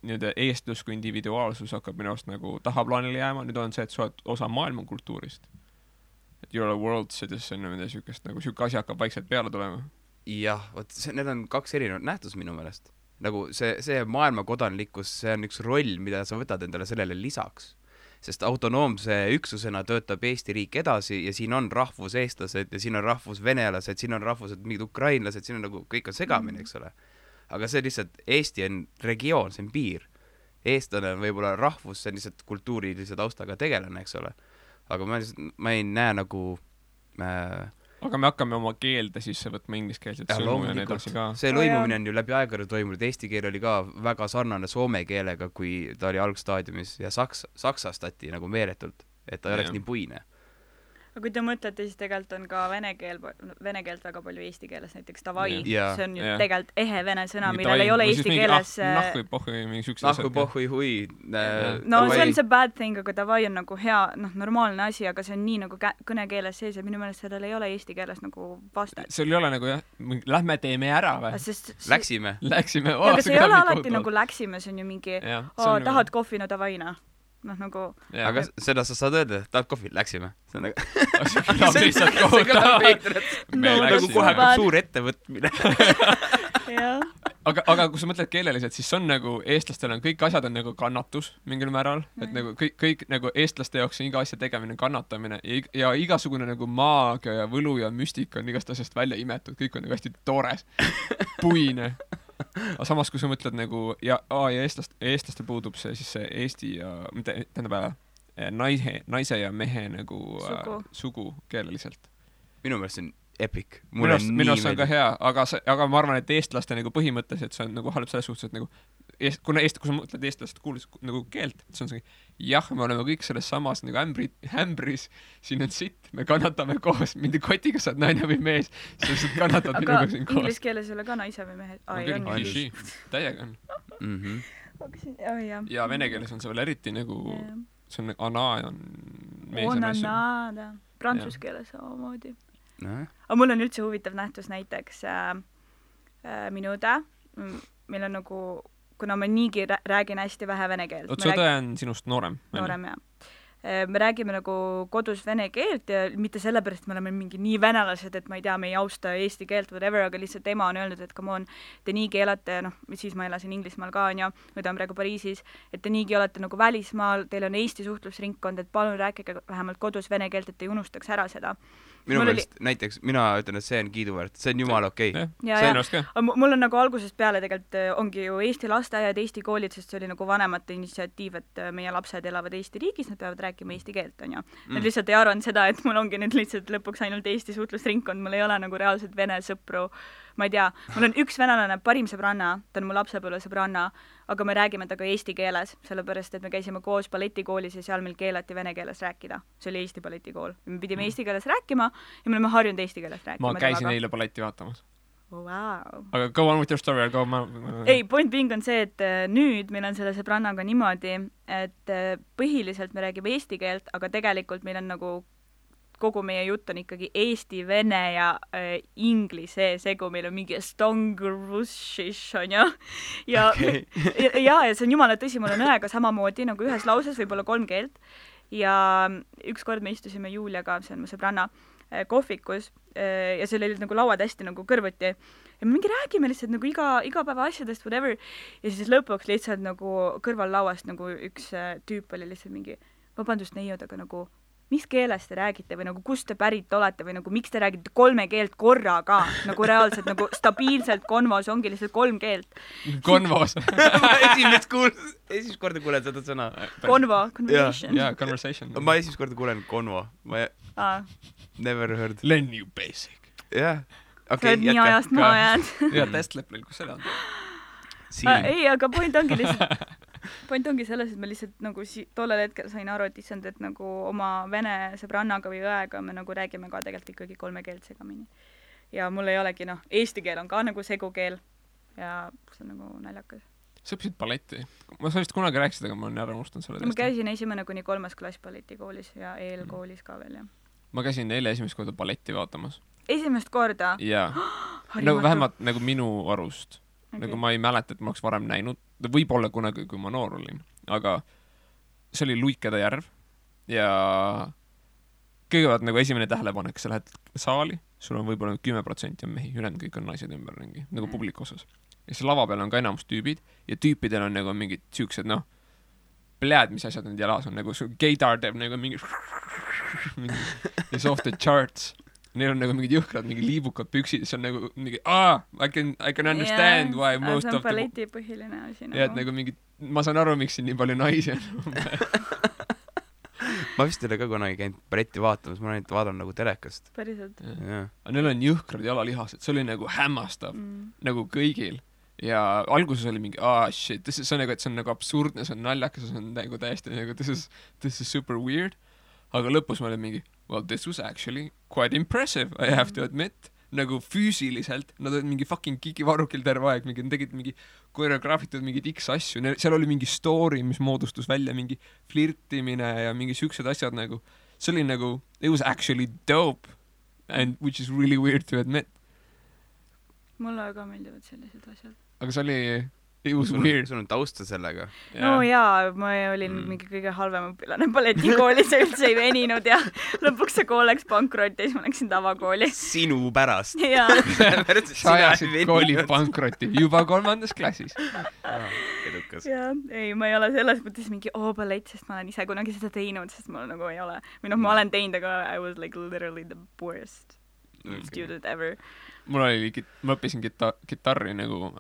nii-öelda eestlus kui individuaalsus hakkab minu arust nagu tahaplaanile jääma. Nüüd on see, et sa oled osa maailmakultuurist. Et you're a world citizen või mida sükest, nagu süke asi hakkab vaikselt peale tulema. jah, need on kaks erinevat nähtust minu meelest. Nagu see maailmakodanlikkus, see on üks roll, mida sa võtad endale sellele lisaks. Sest autonoomse üksusena töötab Eesti riik edasi ja siin on rahvuseestlased ja siin on rahvusvenelased, siin on rahvused mingid ukrainlased, siin on nagu kõik on segamini, eks ole. Aga see lihtsalt, Eesti on regioon, see on piir. Eestlane on võib-olla rahvus, see on lihtsalt kultuurilise taustaga tegelane, eks ole. Aga ma ei näe nagu aga me hakkame oma keelde sisse võtma ingliskeelset sõnu ja nii edasi ka. See lõimumine on ju läbi aegade toimunud, eesti keel oli ka väga sarnane soome keelega, kui ta oli algstaadiumis ja saksastati nagu meeletult, et ta ei oleks nii puine. Aga kui te mõtlete, siis tegelikult on ka vene keelt väga palju eesti keeles, näiteks davai, Yeah. see on ju Yeah. tegelikult ehe vene sõna, millel ei ole eesti keeles... Nahku ei pohhui, mingi sükse Nahku pohhui hui. No see on see bad thing, aga davai on nagu hea, normaalne asi, aga see on nii nagu kõnekeeles sees ja minu meelest sellel ei ole eesti keeles nagu vastet. See ei ole nagu jah, lähme teeme ära või? Läksime. Läksime. Aga see ei ole alati nagu läksime, see on ju mingi, tahad kohvi, no davai, nagu... Aga seda sa saad öelda, tahad kohvi, läksime. See on nagu... lihtsalt kohutav. Nagu kohe suur ettevõtmine. Aga kui sa mõtled keeleliselt, siis on nagu eestlastel on kõik asjad on nagu kannatus mingil määral, et nagu kõik nagu eestlaste jaoks on iga asja tegemine kannatamine ja igasugune nagu maagia ja võlu ja müstika on igast asjast välja imetud, kõik on nagu hästi toores, puine. Aga samas, kui sa mõtled nagu ja eestlastel puudub see siis see eesti ja tähendab naise ja mehe nagu sugu keeleliselt. Minu meelest see on epic. Minu arust on ka hea, aga ma arvan, et eestlaste nagu põhimõtteliselt see on nagu halb selles suhtes, et nagu kui sa mõtled eestlast kuulis nagu keelt, see on see, jah, me oleme kõik selles samas nagu hämbris, siin on sitt, me kannatame koos, mindi kotiga saad naine või mees, sa lihtsalt kannatad minuga siin koos. Aga inglise keeles ei ole ka naise või mehe? Täiega on. Ja vene keeles on see veel eriti nagu, see on ana on mees ja naise. Prantsuse keeles samamoodi. Aga mul on üldse huvitav nähtus näiteks minu õde, meil on nagu, kuna ma niigi räägin hästi vähe vene keelt. Su õde on sinust noorem? Noorem, jah. Me räägime nagu kodus vene keelt ja mitte sellepärast, me oleme mingi nii venelased, et ma ei tea, me ei austa eesti keelt, whatever, aga lihtsalt ema on öelnud, et come on, te niigi elate, siis ma elasin Inglismaal ka, on ju, või ta on praegu Pariisis, et te niigi olete nagu välismaal, teil on Eesti suhtlusringkond, et palun rääkige vähemalt kodus vene keelt, et ei unustaks ära seda. Minu meelest näiteks, mina ütlen, et see on kiiduväärt, see on jumala okei. Mul on nagu algusest peale tegelikult ongi ju Eesti lasteaiad, Eesti koolid, sest see oli nagu vanemate initsiatiiv, et meie lapsed elavad Eesti riigis, nad peavad rääkima eesti keelt, on ju. Nad lihtsalt ei arvanud seda, et mul ongi nüüd lihtsalt lõpuks ainult Eesti suhtlusringkond, mul ei ole nagu reaalselt vene sõpru, ma ei tea, mul on üks venelane, parim sõbranna, ta on mu lapsepõlve sõbranna, aga me räägime temaga eesti keeles, sellepärast, et me käisime koos balletikoolis ja seal meil keelati vene keeles rääkida. See oli Eesti balletikool. Me pidime eesti keeles rääkima ja me oleme harjunud eesti keeles rääkima. Ma käisin eile balletti vaatamas. Wow. Aga go on with your story, go Ei, point being on see, et nüüd meil on selle sõbrannaga niimoodi, et põhiliselt me räägime eesti keelt, aga tegelikult meil on nagu kogu meie jutt on ikkagi eesti, vene ja inglise segu, meil on mingi stongrussish, on ju. Ja, ja see on jumala tõsi, mul on õega samamoodi nagu ühes lauses võib-olla 3 keelt. Ja ükskord me istusime Juliaga, see on mu sõbranna, kohvikus ja seal olid nagu lauad hästi nagu kõrvuti ja me mingi räägime lihtsalt nagu igapäeva asjadest, whatever, ja siis lõpuks lihtsalt nagu kõrval lauast nagu üks tüüp oli lihtsalt mingi, vabandust neiud, aga nagu mis keeles te räägite või nagu kust te pärit olete või nagu miks te räägite 3 keelt korraga, nagu reaalselt nagu stabiilselt konvos ongi lihtsalt 3 keelt. Konvos. ma esimest korda kuulen seda sõna. Konvo, conversation. Jaa, conversation. Ma esimest korda kuulen konvo. Ma never heard. Learn you basic. Jah. Sa oled nii ajast maha jäänud. Jaa, testleplil, kus see on? Ei, aga point ongi selles, et ma lihtsalt nagu tollel hetkel sain aru, et issand, et nagu oma vene sõbrannaga või õega me nagu räägime ka tegelikult ikkagi 3 keelt segamini. Ja mul ei olegi, eesti keel on ka nagu segukeel ja see on nagu naljakas. Sa õppisid balletti? Ma sa vist kunagi rääkisid, aga ma olen ära unustanud selle ma käisin 1. kuni 3. klass balletikoolis ja eelkoolis ka veel, jah. Ma käisin eile esimest korda balletti vaatamas. Esimest korda? Jaa. Nagu vähemalt nagu minu arust. Okay. Nagu ma ei mäleta, et ma oleks varem näinud. Võib-olla kunagi, kui ma noor olin. Aga see oli Luikede järv. Ja kõigepealt nagu esimene tähelepanek, sa lähed saali, sul on võib-olla 10% on mehi, ülejäänud kõik on naised ümberringi, nagu publiku osas. Ja see lava peal on ka enamus tüübid ja tüüpidel on nagu mingid siuksed, pläad, mis asjad need jalas on, nagu gaydar teeb nagu mingi is off the charts. Neil on nagu mingid jõhkrad, mingi liibukad püksid, see on nagu mingi, I can understand why most of the... See on balleti põhiline asi. Ja, et nagu mingi, ma saan aru, miks siin nii palju naisi on. Ma vist ei ole ka kunagi käinud balletti vaatamas, ma olen vaadanud nagu telekast. Päriselt. Aga neil on jõhkrad jalalihased, see oli nagu hämmastav, nagu kõigil. Ja alguses oli mingi, shit, see on nagu, et see on nagu absurdne, see on naljakas, see on nagu täiesti nagu, this is super weird. Aga lõpus ma olin mingi, well, this was actually quite impressive, I have to admit. Nagu füüsiliselt, nad olid mingi fucking kikivarukil terve aeg, nad tegid mingi koreograafitud mingid X asju, seal oli mingi story, mis moodustus välja, mingi flirtimine ja mingi siuksed asjad nagu, see oli nagu, it was actually dope, and which is really weird to admit. Mulle ka meeldivad sellised asjad. Aga see oli... It was weird. Sul on tausta sellega. No jaa, ma olin mingi kõige halvem õpilane balletikoolis ja üldse ei veninud ja lõpuks see kool läks pankrotti ja siis ma läksin tavakooli. Sinu pärast. Jaa. Sa ajasid kooli pankrotti juba 3. klassis. Edukas. Jaa, ei, ma ei ole selles mõttes mingi ballett, sest ma olen ise kunagi seda teinud, sest mul nagu ei ole. Või ma olen teinud, aga I was like literally the worst student ever. Mul oli, ma õppisin kitarri nagu...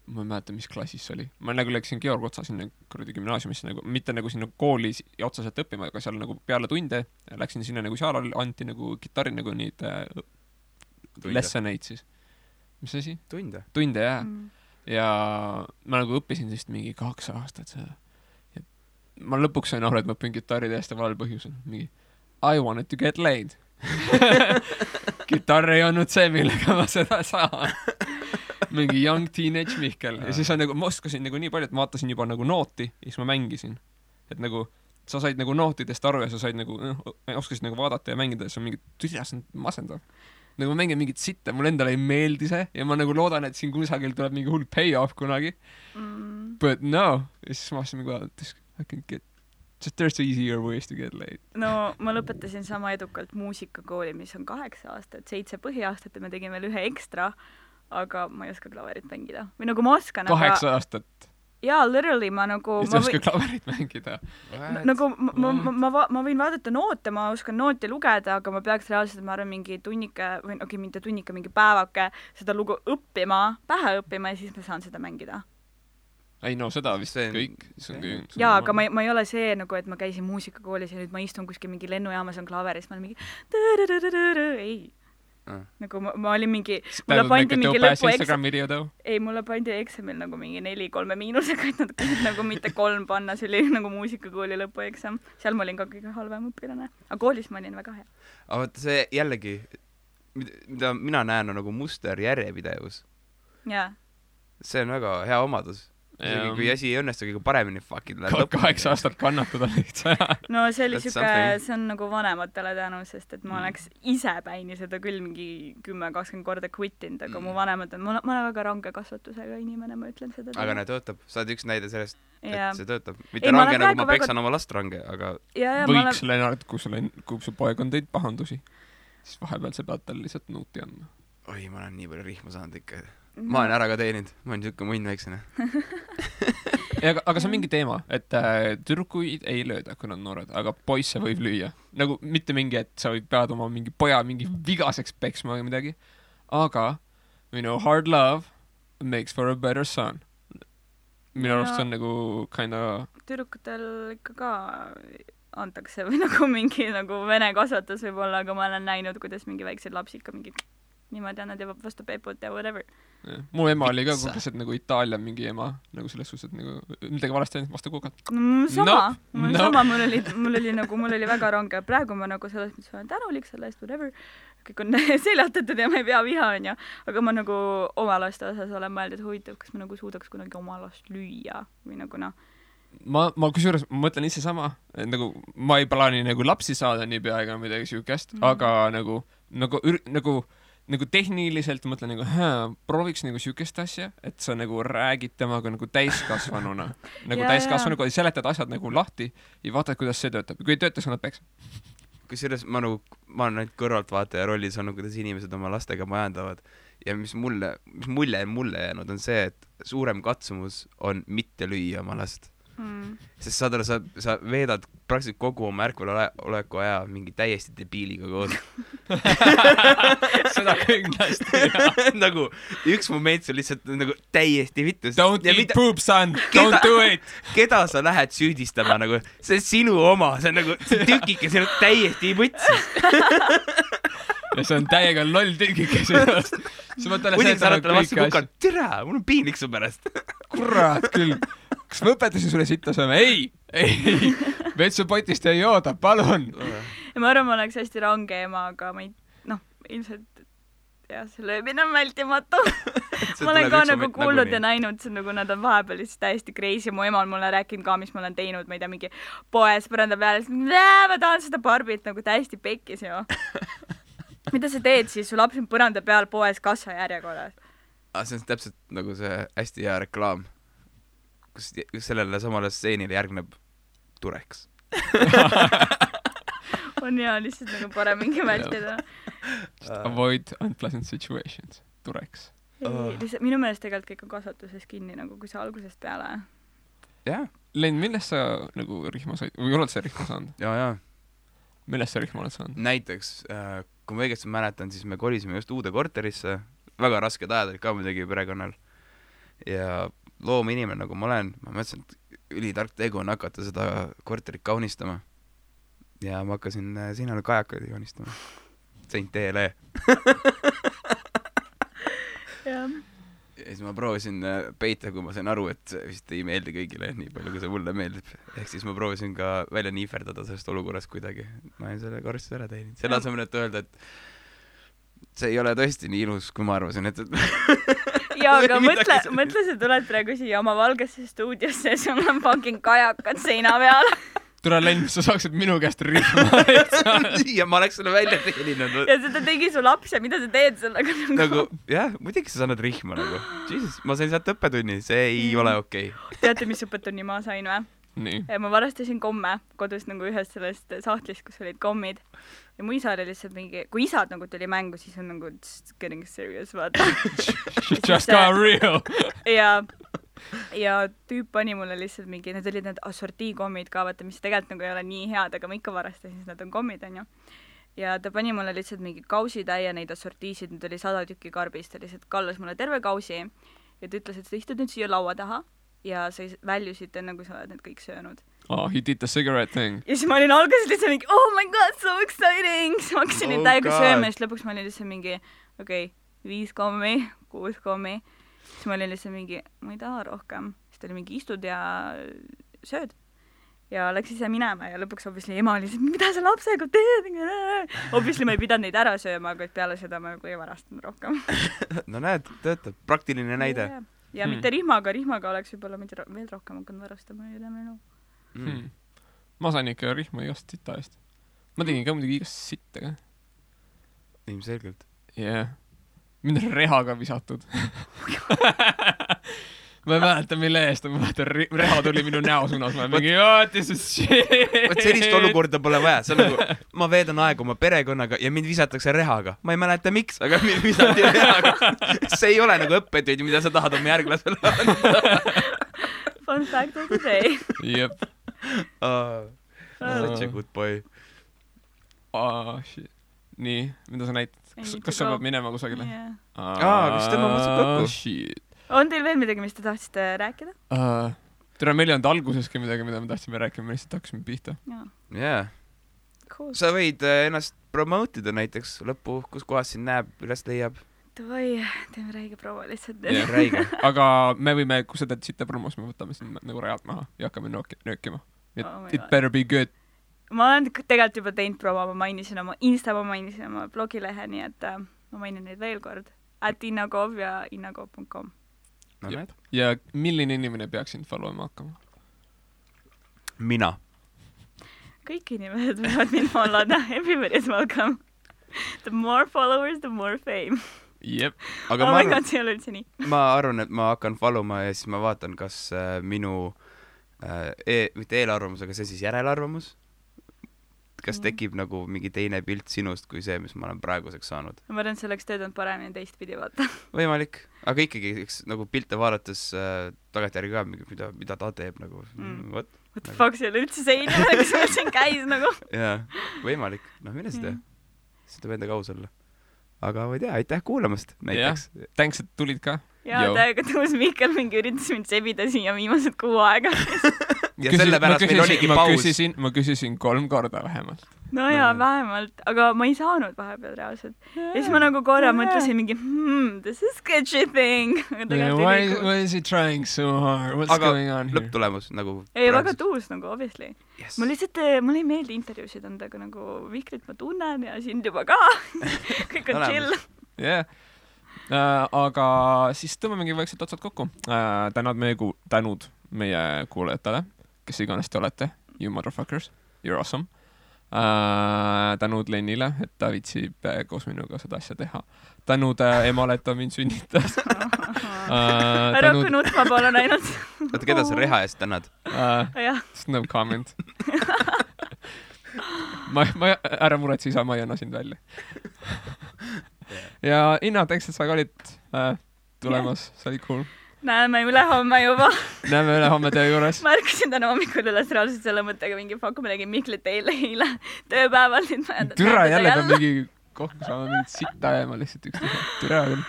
ma ei mäleta, mis klassis see oli. Ma nagu läksin Georg Otsa sinna kuradi gümnaasiumisse, nagu, mitte nagu sinna kooli otsaselt õppima, aga seal nagu peale tunde läksin sinna nagu seal anti nagu kitarri nagu neid lessoneid siis. Mis asi? Tunde, jah. Ja ma nagu õppisin siis mingi 2 aastat seda. Ja ma lõpuks sain aru, et ma õpin kitarri täiesti valel põhjusel. Mingi, I wanted to get laid. Kitarr ei olnud see, millega ma seda saan. Mingi young teenage Mihkel. Ja siis nagu, ma oskasin nagu nii palju, et ma vaatasin juba nagu nooti ja siis ma mängisin. Et nagu, sa said nagu nootidest aru ja sa said nagu, oskasid nagu vaadata ja mängida ja see on mingi, tüsjas on masendav. Nagu ma mängin mingit sitte, mul endale ei meeldi see ja ma nagu loodan, et siin kusagil tuleb mingi hull payoff kunagi. But no. Ja siis ma vastasin mingi, I can get, just there's easier ways to get laid. No, ma lõpetasin sama edukalt muusikakooli, mis on 8 aastat, 7 põhiaastat ja me tegime veel ühe ekstra. Aga ma ei oska klaverit mängida. Või nagu ma oskan, 8 aastat? Jaa, literally ma nagu... Just oska klaverit mängida? Nagu ma võin vaadata noote, ma oskan nooti lugeda, aga ma peaks reaalselt, ma arvan, mingi tunnike, või mitte tunnike, mingi päevake seda lugu õppima, pähe õppima ja siis ma saan seda mängida. Ei no, seda vist kõik. Jaa, aga ma ei ole see, nagu, et ma käisin muusikakoolis ja nüüd ma istun kuskil mingi lennujaamas on klaveris, ma olen mingi... Ei. Nagu ma olin mingi mulle pandi mingi mulle pandi eksamil nagu mingi 4-3 miinusega, et nad kõik nagu mitte 3 panna, see oli nagu muusikakooli lõpueksam, seal ma olin ka kõige halvem õpilane, aga koolis ma olin väga hea. Aga vaata see jällegi, mida mina näen on nagu muster järjepidevus. Jaa. See on väga hea omadus, isegi kui asi ei õnnestu kõige paremini, fucking läheb 8 aastat kannatada lihtsalt. no see oli That's siuke, something. see on nagu vanematele tänu, sest et ma oleks ise päini seda küll mingi 10-20 korda quittinud, aga mu vanemad on, ma olen väga range kasvatusega inimene, ma ütlen seda. aga näe, töötab. sa oled üks näide sellest, ja. et see töötab. Ei, mitte ma range olen nagu praegu ma peksan oma last range, aga võiks Lennart, kui su poeg on teinud pahandusi, siis vahepeal sa pead talle lihtsalt nuuti andma. oi, ma olen nii palju rihma saanud ikka. ma olen ära ka teeninud, ma olen siuke munn väiksene. aga see on mingi teema, et tüdrukuid ei lööda, kui nad on noored, aga poisse võib lüüa. Nagu mitte mingi, et sa pead oma mingi poja mingi vigaseks peksma või midagi, aga hard love makes for a better son. Minu arust see on nagu kinda... Tüdrukutel ikka ka antakse või nagu mingi nagu vene kasvatus võib-olla, aga ma olen näinud, kuidas mingi väiksed lapsi ikka mingi niimoodi annad ja vastu peeput ja whatever. Mu ema oli ka konkreetselt nagu Itaalia mingi ema, nagu selles suhtes, et nagu midagi valesti ainult vastu kukad. Sama, mul oli väga range. Praegu ma nagu selles mõttes olen tänulik selle eest, whatever. Kõik on seljatatud ja ma ei pea viha, on ju. Aga ma nagu oma laste osas olen mõelnud, et huvitav, kas ma nagu suudaks kunagi oma last lüüa või nagu noh. Ma kusjuures mõtlen ise sama, nagu ma ei plaani nagu lapsi saada nii pea ega midagi siukest, aga nagu tehniliselt mõtlen nagu, prooviks nagu siukest asja, et sa nagu räägid temaga nagu täiskasvanuna. Nagu täiskasvanuga seletad asjad nagu lahti ja vaatad, kuidas see töötab. Kui ei tööta, sa annad peksa. Kusjuures ma olen ainult kõrvaltvaataja rollis olnud, kuidas inimesed oma lastega majandavad. Ja mis mulje jäänud on see, et suurem katsumus on mitte lüüa oma last. Sest sa veedad praktiliselt kogu oma ärkveloleku aja mingi täiesti debiiliga koos. Seda kindlasti, jah. Nagu üks moment see lihtsalt nagu täiesti vittus. Don't eat poop, son! Don't do it! Keda sa lähed süüdistama nagu? See on sinu oma, see on nagu tükike, see on täiesti võtsis. Ja see on täiega loll tükike sellest. Muidugi sa oled talle vastu kukanud, tere, mul on piinlik su pärast. Kurat küll. Kas ma õpetasin sulle sitta sööma? Ei! Vetsupotist ei jooda, palun! Ja ma arvan, ma oleks hästi range ema, aga ma ei, ilmselt jah, see löömine on vältimatu. Ma olen ka nagu kuulnud ja näinud, see nagu nad on vahepeal lihtsalt täiesti crazy. Mu ema on mulle rääkinud ka, mis ma olen teinud, ma ei tea, mingi poes põranda peale, ma tahan seda Barbit nagu täiesti pekkis ju. Mida sa teed siis? Su laps on põranda peal poes kassa järjekorras. See on täpselt nagu see hästi hea reklaam, kus sellele samale stseenile järgneb Tureks. On hea lihtsalt nagu parem mingi vältida. Avoid unpleasant situations. Tureks. Minu meelest tegelikult kõik on kasvatuses kinni, nagu kui sa algusest peale. Jaa. Len, millest sa nagu rihma said? Või oled sa rihma saanud? Jaa. Millest sa rihma oled saanud? Näiteks, kui ma õigesti mäletan, siis me kolisime just uude korterisse. Väga rasked ajad olid ka muidugi perekonnal. Ja loominimene, nagu ma olen, ma mõtlesin, et ülitark tegu on hakata seda korterit kaunistama. Ja ma hakkasin sinna kajakaid kaunistama. Saint TLE. Ja siis ma proovisin peita, kui ma sain aru, et see vist ei meeldi kõigile nii palju, kui see mulle meeldib. Ehk siis ma proovisin ka välja niiferdada sellest olukorrast kuidagi. Ma olen selle korrastuse ära teeninud. Selle asemel, et öelda, et see ei ole tõesti nii ilus, kui ma arvasin, et jaa, aga mõtle, sa tuled praegu siia oma valgesse stuudiosse ja sul on fucking kajakad seina peal. Tule, Len, sa saaksid minu käest rihma. Ja ma oleks selle välja teeninud. Ja seda tegi su laps ja mida sa teed sellega? Nagu, jah, muidugi sa saanud rihma nagu. Jesus, ma sain sealt õppetunni, see ei ole okei. Teate, mis õppetunni ma sain või? Nii. Ja ma varastasin komme kodus nagu ühest sellest sahtlist, kus olid kommid. Ja mu isa oli lihtsalt mingi, kui isad nagu tuli mängu, siis on nagu getting serious, vaata. Just got real. Ja tüüp pani mulle lihtsalt mingi, need olid need assortiikommid ka, vaata, mis tegelikult nagu ei ole nii head, aga ma ikka varastasin, siis nad on kommid, on ju. Ja ta pani mulle lihtsalt mingi kausitäie neid assortiisid, nüüd oli 100 tükki karbist, ta lihtsalt kallas mulle terve kausi ja ta ütles, et sa istud nüüd siia laua taha ja sa väljusid enne, kui sa oled need kõik söönud. Oh, he did the cigarette thing. Ja siis ma olin alguses lihtsalt mingi, oh my god, so exciting! Siis ma hakkasin neid täiega sööma ja siis lõpuks ma olin lihtsalt mingi, 5 kommi, 6 kommi. Siis ma olin lihtsalt mingi, ma ei taha rohkem. Siis ta oli mingi, istud ja sööd. Ja läks ise minema ja lõpuks obviously ema oli lihtsalt, mida sa lapsega teed? Obviously ma ei pidanud neid ära sööma, aga peale seda ma nagu ei varastanud rohkem. No näed, töötab. Praktiline näide. ja mitte rihmaga oleks võib-olla veel rohkem hakanud varastama üle minu. Ma sain ikka rihma igast sita eest. Ma tegin ka muidugi igast sitta ka. Ilmselgelt. Yeah. Mind on rehaga visatud. Ma ei mäleta, mille eest, ma mäletan, reha tuli minu näo suunas, ma mingi, this is shit. Võt sellist olukorda pole vaja, see on nagu, ma veedan aega oma perekonnaga ja mind visatakse rehaga. Ma ei mäleta miks, aga mind visati rehaga. See ei ole nagu õppetööd, mida sa tahad oma järglasele anda. Fun fact of the day. Jep. Such a good boy. Shit. Nii, mida sa näitad? Kas sa pead minema kusagile? Kas tema mõtleb kokku? Shit. On teil veel midagi, mis te tahtsite rääkida? Tere, meil ei olnud alguseski midagi, mida me tahtsime rääkima, me lihtsalt hakkasime pihta. Yeah. Cool. Sa võid ennast promoteida näiteks lõppu, kus kohas sind näeb, üles leiab. Davai, teeme räige promo lihtsalt. Yeah, räige. Aga me võime, kui sa teed sitte promos, me võtame sind nagu rajalt maha ja hakkame nöökima. It better be good. Ma olen tegelikult juba teinud promo, ma mainisin oma Insta, ma mainisin oma blogilehe, nii et ma mainin neid veel kord. @innakov ja innakov.com. No, ja milline inimene peaks sind followima hakkama? Mina. Kõik inimesed võivad mind followda. Everybody is welcome. The more followers, the more fame. Jep. Aga ma arvan, see ei ole üldse nii. Ma arvan, et ma hakkan followma ja siis ma vaatan, kas minu mitte eelarvamus, aga see siis järelarvamus. Kas tekib nagu mingi teine pilt sinust kui see, mis ma olen praeguseks saanud? Ma arvan, see oleks töötanud paremini teistpidi vaata. Võimalik, aga ikkagi nagu pilte vaadates tagantjärgi ka, mida ta teeb nagu. What the fuck, see oli üldse see inimene, kes meil siin käis nagu. Jaa, võimalik. Mine seda. Seda peab endaga aus olla. Aga ma ei tea, aitäh kuulamast näiteks. Thanks, et tulid ka. Jaa, täiega tõus Mihkel mingi üritas mind sebida siia viimased 6 aega. Ja sellepärast meil oligi paus. Ma küsisin 3 korda vähemalt. No jaa, vähemalt, aga ma ei saanud vahepeal reaalselt. Ja siis ma nagu korra mõtlesin mingi, this is sketchy thing. Why is he trying so hard? What's going on here? Aga lõpptulemus nagu... Ei, väga tuus nagu, obviously. Ma lihtsalt, mul ei meeldi intervjuusid anda, aga nagu Vihkrit ma tunnen ja sind juba ka. Kõik on chill. Yeah. Aga siis tõmbamegi vaikselt otsad kokku. Tänud meie kuulajatele, kes iganes te olete. You motherfuckers, you're awesome. Tänud Lennile, et ta viitsib koos minuga seda asja teha. Tänud emale, et ta mind sünnitas. Ära kui nutma palun ainult. Oota, keda sa reha eest tänad? No comment. Ära muretsi, isa, ma ei anna sind välja. Ja Inna, thanks, et sa ka olid tulemas, see oli cool. Näeme ülehomme juba. Näeme ülehomme töö juures. Ma ärkasin täna hommikul üles reaalselt selle mõttega mingi fuck, ma tegin Mihklit eile tööpäeval. Türa jälle peab mingi koht, kus saame mingit sitta jääma lihtsalt üksteise. Türa küll.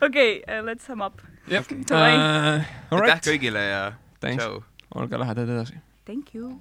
Okei, let's sum up. Aitäh kõigile ja tšau. Olge lähedad edasi. Thank you.